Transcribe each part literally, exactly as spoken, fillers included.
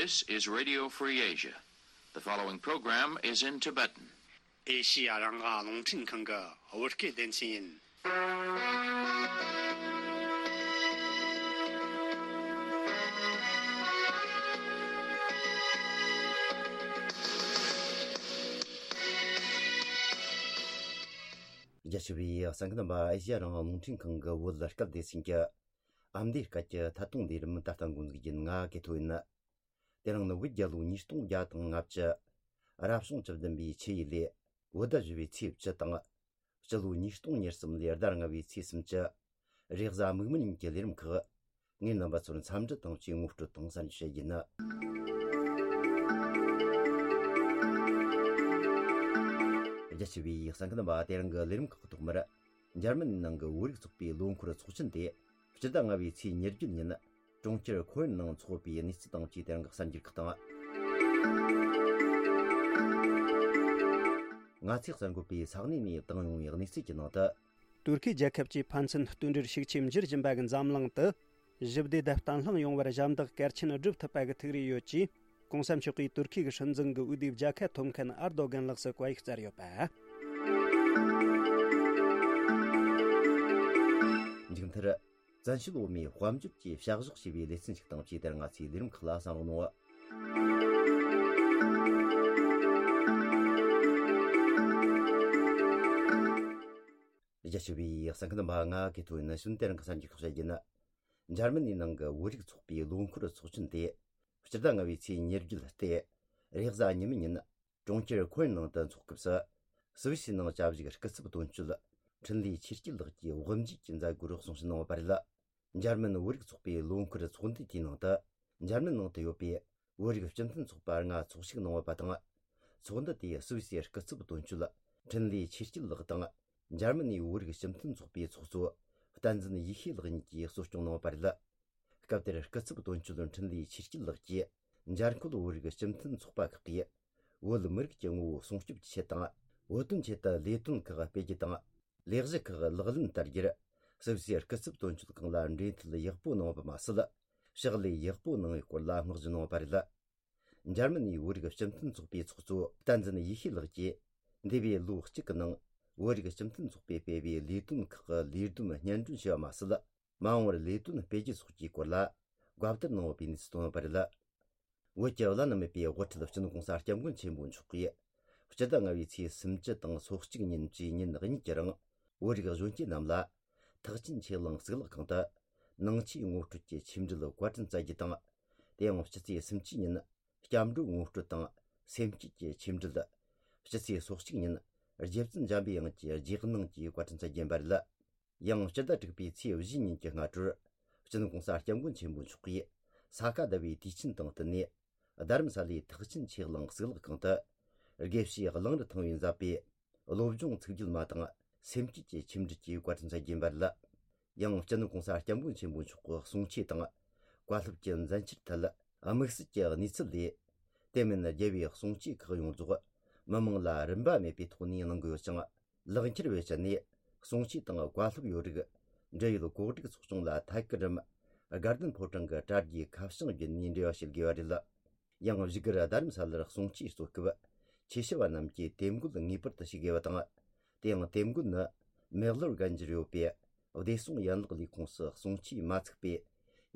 This is Radio Free Asia. The following program is in Tibetan. ཨེ་ཤི་ཡ་རང་དབང་རླུང་འཕྲིན་ཁང་གི་བོད་སྐད་སྡེ་ཚན་ཡིན། རྒྱ་ཆེ་བའི་གསན་མཁན་རྣམ་པ། ཨེ་ཤི་ཡ་རང་དབང་རླུང་འཕྲིན་ཁང་གི་བོད་སྐད་སྡེ་ཚན་གྱི་ཨ་མདོའི་སྐད་ཀྱི་ཐད་གཏོང་ལས་རིམ་ད་ལྟ་འགོ་འཛུགས་ཡིན། ང་གི་ཐོ་ཡིན། དེ་རིང་ནི་བོད་རྒྱལ་ལོ་ཉིས་སྟོང་བརྒྱ་དང་ལྔ་བཅུ། རབ་བྱུང་བཅུ་བདུན་པའི་ཆུ་ཡོས་ལོའི་བོད་ཟླ་བཞི་པའི་ཚེས་བཅུ་དང་། སྤྱི་ལོ་ཉིས་སྟོང་ཉེར་གསུམ་ལོའི་ཟླ་ལྔ་པའི་ཚེས་སུམ་ཅུ། རེས་གཟའ་མིག་དམར་ཉིན་གྱི་ལས་རིམ་ཁག་ངས་རྣམ་པ་ཚོར་འཚམས་འདྲི་དང་བཅས་ངོ་སྤྲོད་དང་གསན་བཤད་ཡིན། རྒྱ་ཆེ་བའི་གསན་མཁན་རྣམ་པ། དེ་རིང་གི་ལས་རིམ་ཁག་གི་ཐོག་མར། འཇར་མན་ནང་གི་བོད་རིགས་ཚོགས་པའི་ལོ་འཁོར་ཚོགས་ཆེན་དེ། སྤྱི་ཟླ་ལྔ་པའི་ཚེས་ཉེར་བརྒྱད་ཉིན། གྲོང་ཁྱེར་ཁོ་ཡན་ནང་འཚོགས་པའི་གནས་ཚུལ་དང་བཅས་དེ་རིང་གི་གསར་འགྱུར་ཁག་དང་། ང་ཚོས་གསར་འགོད་པས་ས་གནས་ནས་བཏང་ཡོང་བའི་གནས་ཚུལ་གྱི་ནང་དུ། ཏུར་ཁེ་རྒྱལ་ཁབ་ཀྱི་ཕན་ཚུན་མཐུན་སྒྲིལ་ཤུགས་ཆེ་འགྱུར་བཞིན་པ་གི་འཛམ་གླིང་དུ། ཞི་བདེ་དང་བརྟན་ལྷིང་ཡོང་བར་ཞབས་འདེགས་གལ་ཆེན་བསྒྲུབ་ཐུབ་པ་གི་ཐུགས་རེ་ཡོད་ཅེས། གོང་ས་མཆོག་གིས་ཏུར་ཁེ་གི་སྲིད་འཛིན་གི་འོས་བསྡུའི་རྒྱལ་ཁ་ཐོབ་མཁན་ཨར་དོ་གན་ལགས་སུ་བཀའ་ཡིག་སྩལ་ཡོད་པ། མཇུག་མཐར། བཙན་བྱོལ་བོད་མིའི་དཔལ་འབྱོར་གྱི་བྱ་གཞག་ཞེས་པའི་ལེ་ཚན་ཞིག་དང་བཅས་དེར་ང་ཚོའི་ལས་རིམ་ཁག་ལ་གསན་རོགས་གནང་། རྒྱ་ཆེ་བའི་གསན་མཁན་རྣམ་པ། ང་གི་ཐོ་ཡིན། གཞུག་དེ་རིང་གི་གསར་འགྱུར་ཁག་བཤད་རྒྱུ་ཡིན། འཇར་མ་ནིའི་ནང་གི་བོད་རིགས་ཚོགས་པའི་ལོ་འཁོར་ཚོགས་ཆེན་དེ། སྤྱི་ཟླ་ལྔ་པའི་ཚེས་ཉེར་བརྒྱད་སྟེ། རེས་གཟའ་ཉི་མའི་ཉིན། གྲོང་ཁྱེར་ཁོ་ཡན་ནང་དུ་འཚོགས་སྐབས་སུ། སུད་སི་ནང་བཅའ་བཞུགས་སྐུ་ཚབ་དོན་གཅོད། འཕྲིན་ལས་ཆོས་སྐྱིད་ལགས་ཀྱིས་དབུ་འབྱེད་ཀྱི་མཛད་སྒོར་གསུང་བཤད་གནང་བ་རེད། འཇར་མན་བོད་རིགས་ཚོགས་པའི་ལོ་འཁོར་ཚོགས་འདུ་དེའི་ནང་དུ། འཇར་མན་ནང་དུ་ཡོད་པའི་བོད་རིགས་སྤྱི་མཐུན་ཚོགས་པ་ལྔ་ཚོགས་ཞུགས་གནང་བ་དང་། ཚོགས་འདུ་དེའི་སུད་སིའི་སྐུ་ཚབ་དོན་གཅོད། འཕྲིན་ལས་ཆོས་སྐྱིད་ལགས་དང་། འཇར་མ་ནིའི་བོད་རིགས་སྤྱི་མཐུན་ཚོགས་པའི་ཚོགས་གཙོ། བསྟན་འཛིན་ཡེ་ཤེས་ལགས་གཉིས་ཀྱིས་གཙོ་སྐྱོང་གནང་བ་རེད། སྐབས་དེར་སྐུ་ཚབ་དོན་གཅོད་འཕྲིན་ལས་ཆོས་སྐྱིད་ལགས་ཀྱིས། འཇར་འགོད་བོད་རིགས་སྤྱི་མཐུན་ཚོགས་པ་ཁག་གིས། བོད་མི་རིགས་ཀྱི་ངོ་བོ་སྲུང་སྐྱོབ་ཀྱི་ཆེད་དང་། བོད་དོན་ཆེད་དུ་ལས་དོན་ཁག་སྤེལ་རྒྱུ་དང་། ལས་གཞི་ཁག་ལག་ལེན་བསྟར་རྒྱུར། སུད་སིའི་སྐུ་ཚབ་དོན་གཅོད་ཁང་ལ་འབྲེལ་མཐུད་ཡག་པོ་གནང་བ་མ་ཟད། ཕྱག་ལས་ཡག་པོ་གནང་བའི་སྐོར་ལ་བསྔགས་བརྗོད་གནང་བ་རེད། འཇར་མ་ནིའི་བོད་རིགས་སྤྱི་མཐུན་ཚོགས་པའི་ཚོགས་གཙོ་བསྟན་འཛིན་ཡེ་ཤེས་ལགས་ཀྱིས། འདས་པའི་ལོ་གཅིག་གི་ནང་། བོད་རིགས་སྤྱི་མཐུན་ཚོགས་པས་སྤེལ་བའི་ལས་དོན་ཁག་གི་ལས་བསྡོམས་སྙན་སྒྲོན་ཞུ་བ་མ་ཟད། མ་འོངས་པར་ལས་དོན་སྤེལ་རྒྱུ་སོགས་ཀྱི་སྐོར་ལ། བཀའ་བསྡུར་གནང་ཡོད་པའི་གནས་ཚུལ་བཏོན་ཡོད་པ་རེད། བོད་ཀྱི་བླ་ན་མེད་པའི་དབུ་ཁྲིད་སྤྱི་ནོར་༸གོང་ས་༸སྐྱབས་མགོན་ཆེན་པོ་མཆོག་གིས། སྤྱི་ཟླ་ལྔ་པའི་ཚེས་སུམ་ཅུ་དང་སོ་གཅིག་ཉིན་བཅས་ཉིན་གཉིས་ཀྱི་རིང་། བོད་རིགས་གཞོན་སྐྱེས་རྣམས་ལ། ཐེག་ཆེན་ཆོས་གླིང་གཙུག་ལག་ཁང་དུ། ནང་ཆོས་ངོ་སྤྲོད་ཀྱི་ཆོས་འབྲེལ་བཀའ་དྲིན་སྩལ་རྒྱུ་དང་། དེ་ཡང་སྤྱི་ཚེས་སུམ་ཅུ་ཉིན། སྐྱབས་འགྲོ་ངོ་སྤྲོད་དང་། སེམས་བསྐྱེད་ཀྱི་ཆོས་འབྲེལ། སྤྱི་ཚེས་སོ་གཅིག་ཉིན། རྗེ་བཙུན་འཇམ་པའི་དབྱངས་ཀྱི་རྗེས་གནང་གིས་བཀའ་དྲིན་སྩལ་རྒྱུ་ཡིན་པ་རེད། ཡང་སྤྱི་ཟླ་དྲུག་པའི་ཚེས་བཞི་ཉིན་གྱི་སྔ་དྲོར། སྤྱི་ནོར་༸གོང་ས་༸སྐྱབས་མགོན་ཆེན་པོ་མཆོག་གིས་ས་ག་ཟླ་བའི་དུས་ཆེན་དང་བསྟུན་ནས། རྡ་རམ་ས་ལའི་ཐེག་ཆེན་ཆོས་གླིང་གཙུག་ལག་ཁང་དུ། དགེ་བཤེས་གླང་རི་ཐང་པས་མཛད་པའི་བློ་སྦྱོང་ཚིག་བརྒྱད་མ་དང་སེམས་བསྐྱེད་ཀྱི་ཆོས་འབྲེལ་གྱིས་བཀའ་དྲིན་སྩལ་རྒྱུ་ཡིན་པ་རེད། ཡང་སྤྱི་ནོར་༸གོང་ས་༸སྐྱབས་མགོན་ཆེན་པོ་མཆོག་གི་གསུང་ཆོས་དང་། བཀའ་སློབ་ཀྱི་མཛད་འཆར་ཐད་དམིགས་བསལ་གྱི་གནས་ཚུལ་ལས། དེ་མིན་རྒྱལ་བའི་གསུང་ཆོས་ཁག་ཡོངས་རྫོགས་མི་མང་ལ་རིན་པ་མེད་པའི་ཐོག་ནས་གནང་གི་ཡོད་ཅིང་། ལག་འཁྱེར་བེད་སྤྱད་ནས་གསུང་ཆོས་དང་བཀའ་སློབ་ཡོད་རིགས་འབྲེལ་ཡོད་གོ་སྒྲིག་ཚོགས་ཆུང་ལ་ཐད་ཀར་རམ། དགའ་ལྡན་ཕོ་བྲང་གི་དྲ་རྒྱའི་ཁ་བྱང་བརྒྱུད་ནས་འབྲེལ་བ་བྱེད་དགོས་པ་རེད། ཡང་བཞུགས་སྒར་རྡ་རམ་ས་ལར་གསུང་ཆོས་གཙོ་སྐབས་ཆོས་ཞུ་བ་རྣམས་ཀྱིས་དེབ་འགོད་ངེས་པར་དུ་བྱེད་དགོས་པ་དང་། དེ་ཡང་དེབ་འགོད་ནི་མེག་ལོར་རྒན་རྒྱར་ཡོད་པའི་བདེ་སྲུང་ཡན་ལག་ལས་ཁུངས་སུ་གསུང་ཆོས་མ་ཚུགས་པའི་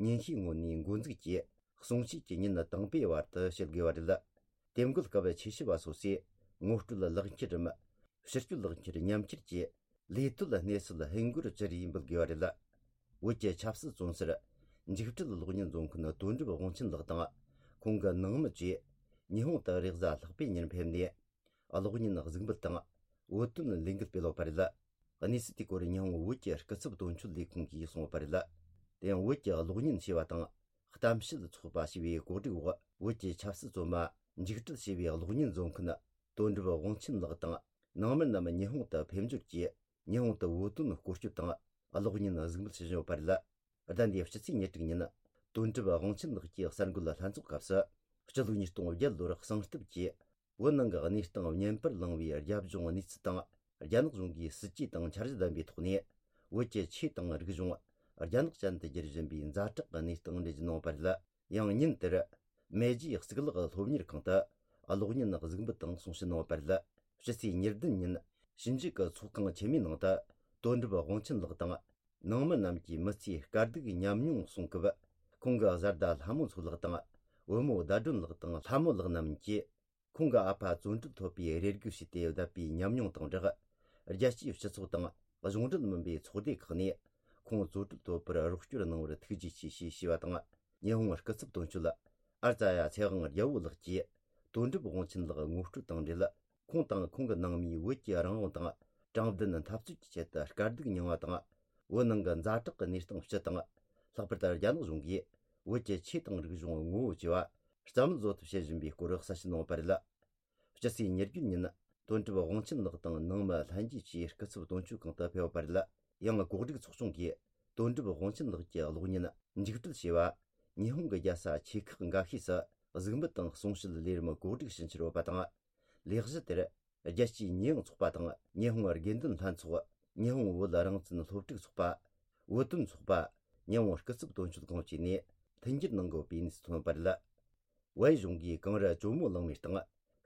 ཉིན་ཤས་སྔོན་ནས་འགོ་འཛུགས་ཀྱིས། གསུང་ཆོས་ཀྱི་ཉིན་དང་པོའི་བར་དུ་བྱེད་དགོས་པ་རེད། དེབ་འགོད་སྐབས་ཆོས་ཞུ་བ་སོ་སོས་ངོ་སྤྲོད་ལག་འཁྱེར་རམ། ཕྱི་སྤྱོད་ལག་འཁྱེར་མཉམ་འཁྱེར་གྱིས་ལས་དོད་གནས་ཚུལ་ཧིན་སྒོར་བཅུ་རེ་འབུལ་དགོས་པ་རེད། བོད་ཀྱི་ཆབ་སྲིད་བཙོན་ཟུར་འཇིགས་བྲལ་གློག་བརྙན་བཟོ་མཁན་དོན་གྲུབ་དབང་ཆེན་ལགས་དང་ཁོང་གི་ནང་མི་བཅས་ཉི་ཧོང་དུ་རེས་གཟའ་ལྷག་པའི་ཉིན་ཕེབས་ནས། གློག་བརྙན་གཟིགས་འབུལ་དང་བོད་དོན་ལས་འགུལ་སྤེལ་ཡོད་པ་རེད། གནས་ཚུལ་དེའི་སྐོར་ཉི་ཧོང་བོད་ཀྱི་སྐུ་ཚབ་དོན་གཅོད་ལས་ཁུངས་ཀྱིས་གསུངས་ཡོད་པ་རེད། དེ་ཡང་བོད་ཀྱི་གློག་བརྙན་ཞེས་པ་དང་གཏམ་བཤད་ཚོགས་པ་ཞེས་པའི་གོ་སྒྲིག་འོག་བོད་ཀྱི་ཆབ་སྲིད་བཙོན་མ་འཇིགས་བྲལ་ཞེས་པའི་གློག་བརྙན་བཟོ་མཁན་དོན་གྲུབ་དབང་ཆེན་ལགས་དང་ནང་མི་རྣམས་ཉི་ཧོང་དུ་ཕེབས་འབྱོར་གྱིས་ཉི་ཧོང་དུ་བོད་དོན་སྐོར་སྐྱོད་དང་གློག་བརྙན་གཟིགས་འབུལ་ཞུ་བཞིན་ཡོད་པ་རེད། ཟླ་འདིའི་སྤྱི་ཚེས་ཉེར་དྲུག་ཉིན། དོན་གྲུབ་དབང་ཆེན་ལགས་ཀྱིས་གསར་འགོད་ལྷན་ཚོགས་སྐབས་སུ། སྤྱི་ལོ་ཉིས་སྟོང་བརྒྱད་ལོར་གསང་སྟབས་ཀྱིས། བོད་ནང་གི་གནས་སྟངས་བརྙན་པར་བླངས་པའི་རྒྱབ་ལྗོངས་གནས་ཚུལ་དང་། རྒྱ་ནག་གཞུང་གིས་སྲིད་ཇུས་དང་འཆར་གཞི་ལྡན་པའི་ཐོག་ནས། བོད་ཀྱི་ཆོས་དང་རིག་གཞུང་། རྒྱ་ནག་ཅན་དུ་བསྒྱུར་བཞིན་པའི་ཛ་དྲག་གི་གནས་སྟངས་འགྲེལ་བརྗོད་གནང་བ་རེད། ཡང་ཉིན་དེར། མེ་ཇིའི་གཙུག་ལག་སློབ་གཉེར་ཁང་དུ་གློག་བརྙན་གཟིགས་འབུལ་དང་གསུང་བཤད་གནང་བ་རེད། ཕྱི་ཚེས་ཉེར་བདུན་ཉིན་ཞིབ་འཇུག་གི་ཚོགས་ཁང་ཆེན་མོའི་ནང་དུ་དོན་གྲུབ་དབང་ཆེན་ལགས་དང་། ནང་མི་རྣམས་ཀྱིས་མི་ཚེའི་དཀའ་སྡུག་ཉམས་མྱོང་གསུང་སྐབས། ཁོང་གི་བཟའ་ཟླ་ལྷ་མོ་མཚོ་ལགས་དང་བུ་མོ་ཟླ་སྒྲོན་ལགས་དང་ལྷ་མོ་ལགས་རྣམས་ཀྱིས། ཁོང་གི་ཨ་ཕ་བཙོན་གྲོལ་ཐོབ་པའི་རེ་སྒུག་བྱས་ཏེ་བསྡད་པའི་ཉམས་མྱོང་དང་སྦྲགས། རྒྱལ་སྤྱིའི་སྤྱི་ཚོགས་དང་གཞུང་འབྲེལ་མིན་པའི་ཚོགས་སྡེ་ཁག་ནས་ཁོང་བཙོན་གྲོལ་ཐོབ་པར་རོགས་སྐྱོར་གནང་བར་ཐུགས་རྗེ་ཆེ་ཞེས་ཞུས་པ་དང་། ཉི་ཧོང་སྐུ་ཚབ་དོན་གཅོད་ཨར་ཙ་ཡ་ཚེ་དབང་རྒྱལ་པོ་ལགས་ཀྱིས། དོན་གྲུབ་དབང་ཆེན་ལགས་ངོ་སྤྲོད་དང་འབྲེལ། ཁོང་དང་ཁོང་གི་ནང་མིས་བོད་ཀྱི་རང་དབང་དང་དྲང་བདེན་འཐབ་རྩོད་ཀྱི་ཆེད་དུ་དཀའ་སྡུག་མྱངས་པ་དང་། བོད་ནང་གི་ཛ་དྲག་གི་གནས་སྟངས་སྤྱི་དང་། ལྷག་པར་དུ་རྒྱ་ནག་གཞུང་གིས་བོད་ཀྱི་ཆོས་དང་རིག་གཞུང་ངོ་བོ་བཅོས་པ་རྩ་མེད་བཟོ་ཐབས་བྱེད་བཞིན་པའི་སྐོར་གསལ་བཤད་གནང་བ་རེད། སྤྱི་ཚེས་ཉེར་བརྒྱད་ཉིན་དོན་གྲུབ་དབང་ཆེན་ལགས་དང་ནང་མི་ལྷན་རྒྱས་ཀྱིས་སྐུ་ཚབ་དོན་གཅོད་ཁང་དུ་ཕེབས་པ་རེད། ཡང་གོ་སྒྲིག་ཚོགས་ཆུང་གིས་དོན་གྲུབ་དབང་ཆེན་ལགས་ཀྱི་གློག་བརྙན་མཇུག་སྒྲིལ་བྱས་པ། ཉི་ཧོང་གི་རྒྱལ་ས་ཆེ་ཁག་འགའ་ཤས་སུ་གཟིགས་འབུལ་དང་གསུང་བཤད་ལས་རིམ་གོ་སྒྲིག་ཕྱིན་ཆད་ཡོད་པ་དང་། ལས་གཞི་དེར་རྒྱལ་སྤྱིའི་ཉེས་ཡངས་ཚོགས་པ་དང་ཉི་ཧོང་དགེ་འདུན་ལྷན་ཚོགས། ཉི་ཧོང་བོད་རང་བཙན་སློབ་ཕྲུག་ཚོགས་པ། བོད་དོན་ཚོགས་པ། ཉི་ཧོང་སྐུ་ཚབ་དོན་གཅོད་ཁང་བཅས་ནས་མཐུན་འགྱུར་གནང་དགོས་པའི་གནས་ཚུལ་ཐོན་པ་རེད། བལ་ཡུལ་གཞུང་གིས་གངས་རི་ཇོ་མོ་གླང་མའི་སྟེང་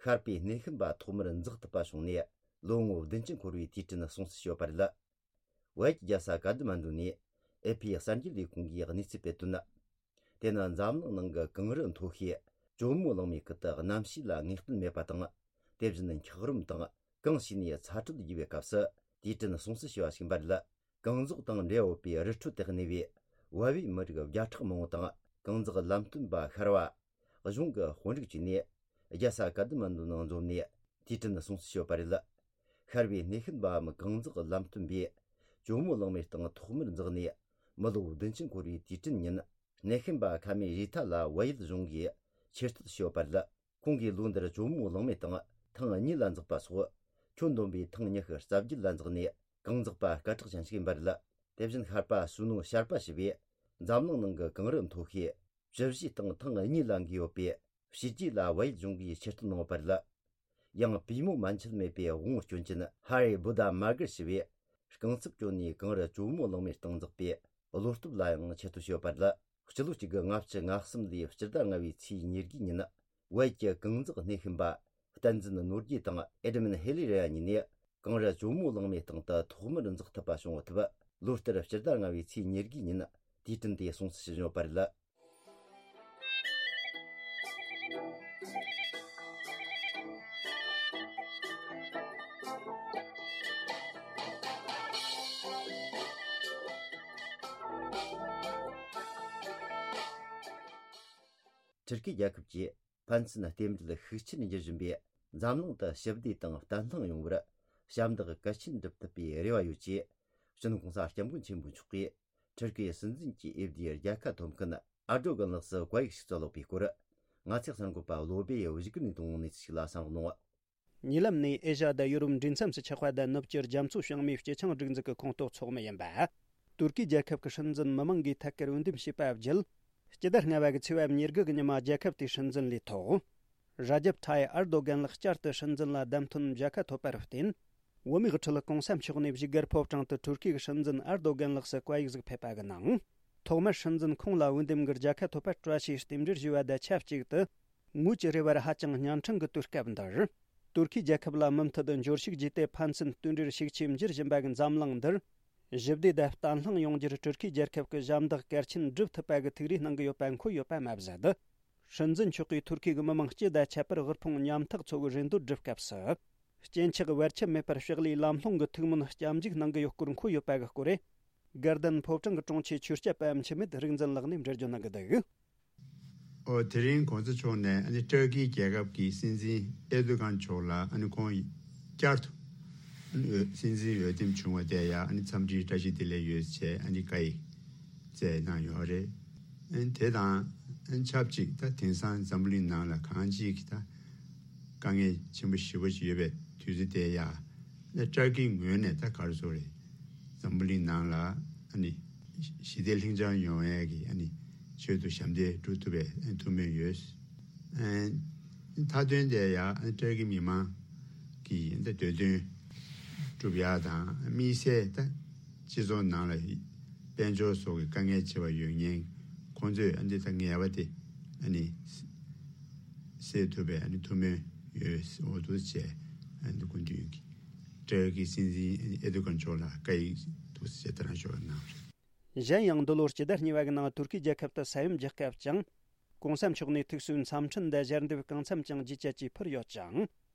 ཤར་པའི་སྣེ་ཤན་པ་ཐོག་མར་འཛེག་ཐུབ་པ་བྱུང་ནས་ལོ་ངོ་བདུན་ཅུ་འཁོར་བའི་དུས་དྲན་སྲུང་བརྩི་ཞུས་པ་རེད། བལ་ཡུལ་གྱི་རྒྱལ་ས་ཀ་ཐ་མན་ཌུ་ནས་ཨེ་ཕི་གསར་འགྱུར་ལས་ཁུངས་ཀྱིས་གནས་ཚུལ་སྤེལ་དོན། དེ་ནི་འཛམ་གླིང་ནང་གི་གངས་རི་མཐོ་ཤོས་ཇོ་མོ་གླང་མའི་ཁུལ་དུ་གནམ་གཤིས་ལ་ངེས་གཏན་མེད་པ་དང་། དེ་བཞིན་འཁྱགས་རོམ་དང་གངས་ཕྱིས་ནས་ཚ་དྲོད་རྒྱས་པའི་སྐབས་སུ་དུས་དྲན་སྲུང་བརྩི་ཞུ་བ་ཞིག་ཡིན་པ་རེད། གངས་འཛོགས་དང་འབྲེལ་བ་ཡོད་པའི་རི་ཁྲོད་དུ་གནས་པའི་བལ་པོའི་མི་རིགས་བརྒྱ་ཕྲག་མང་པོ་དང་། གངས་འཛེགས་ལམ་སྟོན་པ་ཤར་བ། གཞུང་གི་དཔོན་རིགས་བཅས་ནས་རྒྱལ་ས་ཀ་ཐ་མན་ཌུ་ནང་འཛོམས་ནས་དུས་དྲན་སྲུང་བརྩི་ཞུས་པ་རེད། ཤར་པའི་སྣེ་ཤན་པའམ་གངས་འཛེགས་ལམ་སྟོན་པས་ཇོ་མོ་གླང་མའི་སྟེང་ཐོག་མར་འཛེགས་ནས་མི་ལོ་བདུན་ཅུ་འཁོར་བའི་དུས་དྲན་ཉིན། སྣེ་ཤན་པ་ཁ་མེ་རི་ཐ་ལ་བལ་ཡུལ་གཞུང་གིས་ཆེ་བསྟོད་ཞུས་པ་རེད། ཁོང་གིས་ལོ་འདིར་ཇོ་མོ་གླང་མའི་སྟེང་ཐེངས་གཉིས་ལ་འཛེགས་པ་སོགས་ཁྱོན་བསྡོམས་པའི་ཐེངས་ཉི་ཤུ་རྩ་བརྒྱད་ལ་འཛེགས་ནས་གངས་འཛེགས་པ་སྐད་གྲགས་ཅན་ཞིག་ཡིན་པ་རེད། དེ་བཞིན་ཤར་པ་སུ་ནོ་ཤར་པ་ཞེས་པས་འཛམ་གླིང་ནང་གི་གངས་རི་མཐོ་ཤོས་བཅུ་བཞིའི་སྟེང་ཐེངས་གཉིས་ལ་འགོས་ཡོད་པས། ཕྱི་རྒྱལ་ལ་བལ་ཡུལ་གཞུང་གིས་ཆེ་བསྟོད་གནང་བ་རེད། ཡང་པུས་མོ་མན་ཆད་མེད་པའི་དབང་བོ་སྐྱོན་ཅན་ཧ་རི་བུ་ད་མ་གར་ཞེས་པས་རྐང་རྩེད་སྤྱོད་ནས་གངས་རི་ཇོ་མོ་གླང་མའི་སྟེང་འཛེགས་པའི་བློ་སྟོབས་ལ་ཡང་ཆེ་བསྟོད་ཞུས་པ་རེད། སྤྱི་ལོ་གཅིག་དགུ་ལྔ་བཅུ་ང་གསུམ་ལོའི་སྤྱི་ཟླ་ལྔ་པའི་ཚེས་ཉེར་དགུ་ཉིན། བལ་གྱི་གངས་འཛེགས་སྣེ་ཤན་པ་བསྟན་འཛིན་ནོར་རྒྱས་དང་ཨེ་ཌ་མན་ཧེ་ལི་རེ་ཡ་གཉིས་ནས་གངས་རི་ཇོ་མོ་གླང་མའི་སྟེང་དུ་ཐོག་མར་འཛེགས་ཐུབ་པ་བྱུང་ཐུབ། ལོ་ལྟར་སྤྱི་ཟླ་ལྔ་པའི་ཚེས་ཉེར་དགུ་ཉིན་དུས་དྲན་དེ་སྲུང་བརྩི་ཞུ་བཞིན་ཡོད་པ་རེད། ཊུར་ཀི་རྒྱལ་ཁབ་ཀྱིས་ཕན་ཚུན་རྟེན་འབྲེལ་ཤུགས་ཆེར་འགྱུར་བཞིན་པས། འཛམ་གླིང་དུ་ཞི་བདེ་དང་བརྟན་ལྷིང་ཡོང་བར་ཞབས་འདེགས་གལ་ཆེན་སྒྲུབ་ཐུབ་པའི་རེ་བ་ཡོད་ཅེས། སྤྱི་ནོར་༸གོང་ས་༸སྐྱབས་མགོན་ཆེན་པོ་མཆོག་གིས་ཊུར་ཀིའི་སྲིད་འཛིན་གྱི་འོས་བསྡུའི་རྒྱལ་ཁ་ཐོབ་མཁན་ཨར་ཌོ་གན་ལགས་སུ་བཀའ་ཡིག་ཞིག་བསྩལ་ཡོད་པའི་སྐོར། ང་ཚོའི་གསར་འགོད་པ་བློ་སྦེ་ཡིས་གཞིགས་ནས་གཏོང་གནས་ཚུལ་ཞིག་ལ་གསན་རོགས་གནང་། ཉེ་ལམ་ནས་ཨེ་ཤ་ཡ་དང་ཡོ་རོབ་འབྲེལ་མཚམས་སུ་ཆགས་པ་དང་ནུབ་ཕྱོགས་རྒྱ་མཚོ་བྱང་མའི་སྤྱི་ཆིངས་སྒྲིག་འཛུགས་ཀྱི་ཁོངས་གཏོགས་ཚོགས་མི་ཡིན་པ། ཏུར་ཀི་རྒྱལ་ཁབ་ཀྱི་སྲིད་འཛིན་མི་མང་གིས་ཐད་ཀར་འོས་འདེམས་བྱས་པ་བརྒྱུད། སྤྱི་ཟླ་ལྔ་པ་གི་ཚེས་པ་ཉེར་དགུ་གི་ཉི་མ་རྒྱལ་ཁབ་དེའི་སྲིད་འཛིན་ལས་ཐོག་ར་ཇབ་ཐའི་ཨར་རྡོ་གན་ལགས་བསྐྱར་དུ་སྲིད་འཛིན་ལ་བདམས་ཐོན་མཇལ་ཁ་ཐོབ་པར་བརྟེན། བོད་མིའི་ཁྲོད་༸གོང་ས་མཆོག་ནས་བཞུགས་སྒར་ཕོ་བྲང་དུ་ཏུར་ཀིའི་སྲིད་འཛིན་ཨར་རྡོ་གན་ལགས་སུ་བཀའ་ཡིག་ཟིག་ཕེབས་པ་གི་ནང་། ཐོག་མར་སྲིད་འཛིན་ཁོང་ལ་འོས་འདེམས་ཀྱི་རྒྱལ་ཁ་ཐོབ་པར་བཀྲ་ཤིས་རྟེན་འབྲེལ་ཞུ་བ་དང་ཆབས་ཅིག་ཏུ། ངོས་ཀྱི་རེ་བར་ཧ་ཅང་གཉན་འཕྲང་གི་དུས་སྐབས་འདིར། ཏུར་ཀི་རྒྱལ་ཁབ་ལ་མུ་མཐུད་འབྱོར་ཕྱུག་བརྒྱུད་དེ་ཕན་ཚུན་རྟེན་འབྲེལ་ཤུགས་ཆེ་འགྱུར་བཞིན་པ་གི་འཛམ་གླིང་འདིར། ཞི་བདེ་དང་བརྟན་ལྷིང་ཡོང་རྒྱུར་ཏུར་ཀི་རྒྱལ་ཁབ་ཀྱི་ཞབས་འདེགས་གལ་ཆེན་སྒྲུབ་ཐུབ་པ་གི་ཐུགས་རེ་གནང་གི་ཡོད་པ་འཁོད་ཡོད་པ་མ་ཟད། སྲིད་འཛིན་མཆོག་གིས་ཏུར་ཀི་གི་མི་མང་སྤྱི་དང་ཁྱད་པར་དབུལ་ཕོངས་ཉམ་ཐག་ཚོ་གི་རེ་འདོད་སྒྲུབ་སྐབས་སུ། སྐྱེ་འཆི་བར་ཆད་མེད་པར་ཕྱག་ལས་ལམ་ལྷོང་གི་ཐུགས་སྨོན་སྐྱབས་འཇུག་གནང་གི་ཡོད་སྐོར་འཁོད་ཡོད་པ་གི་སྐོར་རེད། དགའ་ལྡན་ཕོ་བྲང་གི་དྲུང་ཆེ་ཆོས་སྐྱབས་པ་འཆི་མེད་རིག་འཛིན་ལགས་ནས་འགྲེལ་བརྗོད་གནང་གི་འདུག། ཨོ། དེ་རིང་གོང་ས་མཆོག་ནས་ཨ་ནི་ཏུར་ཀི་རྒྱལ་ཁབ་ཀྱི་སྲིད་འཛིན་ཨེར་ཏུ་གན་མཆོག་ལ་ཨ་ནི་ཁོང་བསྐྱར་དུ་ཨ་ནི་འོས་སྲིད་འཛིན་འོས་འདེམས་བྱུང་བ་དེ་ཡང་ཨ་ནི་འཚམས་འདྲིའི་བཀྲ་ཤིས་བདེ་ལེགས་ཡོད་ཅེས་ཨ་ནི་བཀའ་ཡིག་བསྩལ་གནང་ཡོད་རེད། ཨ་ནི་དེ་དང་ཨ་ནི་ཆབས་ཅིག་ད་དེང་སང་འཛམ་བུ་གླིང་ནང་ལ་གང་ཅིའི་ད་དཀའ་ངལ་ཆེན་པོ་ཞེ་པོ་ཅིག་ཡོད་པའི་དུས་ཚོད་དེ་ཡང་ཨ་ནི་ཏུར་ཀིའི་ངོས་ནས་ད་ག་རེ་ཟེར་དགོས་རེད། འཛམ་བུ་གླིང་ནང་ལ་ཨ་ནི། ཞི་བདེ་ལྷིང་འཇགས་ཡོང་ཡས་ཀྱི་ཨ་ནི་ཆེད་དུ་ཞབས་འདེགས་སྒྲུབ་ཐུབ་པའི་ཐུགས་སྨོན་ཡོད། མཐའ་དོན་དེ་ཡང་ཏུར་ཀི་མི་མང་གི་འདོད་དོན་སྒྲུབ་ཡག་དང་དམིགས་བསལ་ད་སྤྱི་ཚོགས་ནང་ལ་དཔལ་འབྱོར་སོགས་ཀྱི་དཀའ་ངལ་ཆེ་བ་ཡོད་མཁན་ཁོང་ཚོས་ཨ་འདི་ད་ངལ་བ་དེ་ཨ་ནི་ སེལ་ཐུབ་པའི་ཨ་ནི་ཐུགས་སྨོན་ཡོད་འོ་འདུག་བྱས། ཨ་ནི་སྐུ་མདུན་གྱི་ཏྲར་ཀིའི་སྲིད་འཛིན་ཨེར་ཏོ་གྷན་མཆོག་ལ་བཀའ་ཡིག་འདུག་བྱས་དེ་རང་ཞུ་བ་གནང་བ་རེད། གཞན་ཡང་འདི་ལོར་སྤྱི་ཟླ་གཉིས་པ་གི་ནང་ཐུར་ཁེའི་རྒྱལ་ཁབ་ཏུ་ས་ཡོམ་བརྒྱབ་སྐབས་ཀྱང་གོང་ས་མཆོག་ནས་ཐུགས་གསོའི་འཚམས་འཕྲིན་དང་ཞལ་འདེབས་གང་འཚམ་ཀྱང་ཇི་བྱ་ཇི་ཕུལ་ཡོད་ཅིང་།